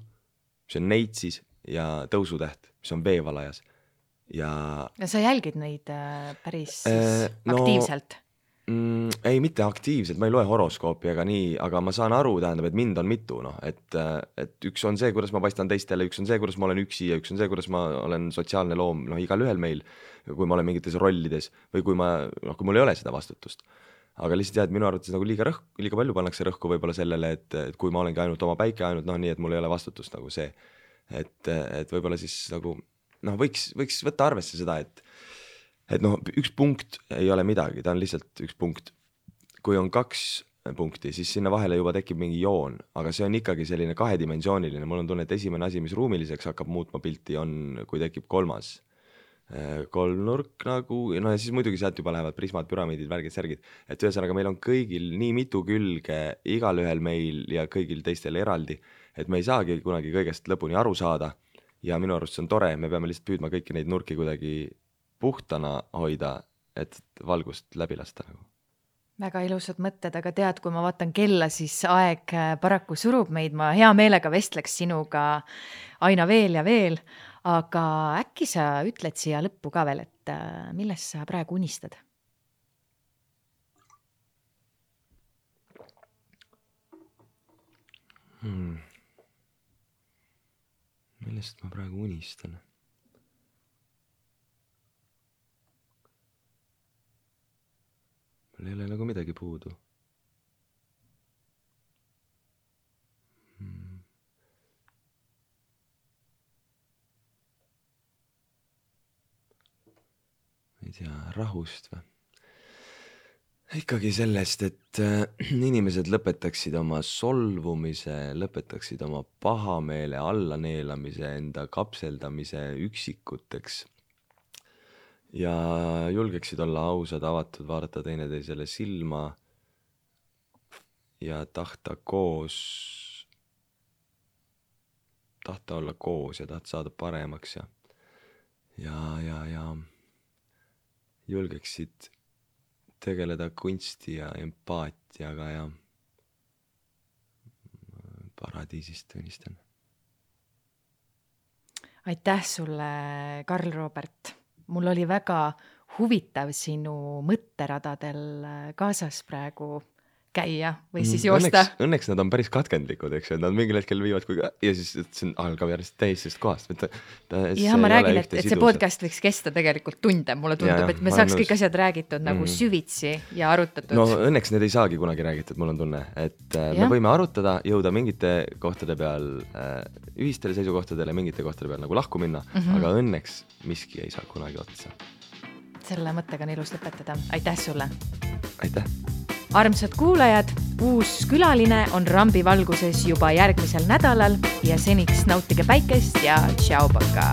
see on neitsis ja tõusutäht, mis on veevalajas. Ja sa jälgid neid päris aktiivselt? Ei, mitte aktiivselt, ma ei loe horoskoopi ega nii, aga ma saan aru, tähendab, et mind on mitu, et üks on see, kuidas ma paistan teistele, üks on see, kuidas ma olen üksi ja üks on see, kuidas ma olen sotsiaalne loom, igal ühel meil, kui ma olen mingites rollides või kui mul ei ole seda vastutust. Aga lihtsalt jah, et minu arvates nagu liiga palju pannakse rõhku võib-olla sellele, et kui ma olengi ainult oma päike, ainult nii, et mul ei ole vastutust nagu see, et võib-olla siis nagu võiks võtta arvesse seda, et üks punkt ei ole midagi, ta on lihtsalt üks punkt. Kui on 2 punkti, siis sinna vahele juba tekib mingi joon, aga see on ikkagi selline kahedimensiooniline. Mul on tunne, et esimene asi, mis ruumiliseks hakkab muutma pilti, on, kui tekib 3. kolmnurk nagu, ja siis muidugi sealt juba lähevad prismad, püramiidid, värgid, särgid. Et ühesõnaga meil on kõigil nii mitu külge, igal ühel meil ja kõigil teistel eraldi, et me ei saagi kunagi kõigest lõpuni aru saada. Ja minu arust see on tore, me peame lihtsalt püüdma kõiki neid nurki kuidagi puhtana hoida, et valgust läbi lasta nagu. Väga ilusad mõtted, aga tead, kui ma vaatan kella, siis aeg paraku surub meid, ma hea meelega vestleks sinuga aina veel ja veel, aga äkki sa ütled siia lõppu ka veel, et millest sa praegu unistad? Millest ma praegu unistan? Mul ei ole nagu midagi puudu. ei tea, rahust või? Ikkagi sellest, et inimesed lõpetaksid oma solvumise, lõpetaksid oma pahameele, allaneelamise, enda kapseldamise üksikuteks ja julgeksid olla ausad, avatud, vaadata teineteisele silma ja tahta olla koos ja tahta saada paremaks ja julgeksid tegeleda kunsti ja empaatiaga ja paradiisist unistan. Aitäh sulle, Karl Robert. Mul oli väga huvitav sinu mõtteradadel kaasas praegu käia või siis joosta. Õnneks nad on päris katkendlikud, eks ju, nad mingil hetkel viivad ja siis see algab järjest täisest kohast. Ja ma räägin, et see podcast võiks kesta tegelikult tunde, mulle tundub, et me saaks kõik asjad räägitud nagu süvitsi ja arutatud. No õnneks need ei saagi kunagi räägitud, mul on tunne, et me võime arutada, jõuda mingite kohtade peal ühistele seisukohtadele, mingite kohtade peal nagu lahku minna, aga õnneks miski ei saa kunagi otsa. Selle mõttega on ilus lõpetada. Aitäh sulle! Aitäh! Armsad kuulajad, uus külaline on Rambi valguses juba järgmisel nädalal ja seniks nautige päikest ja tšau, paka!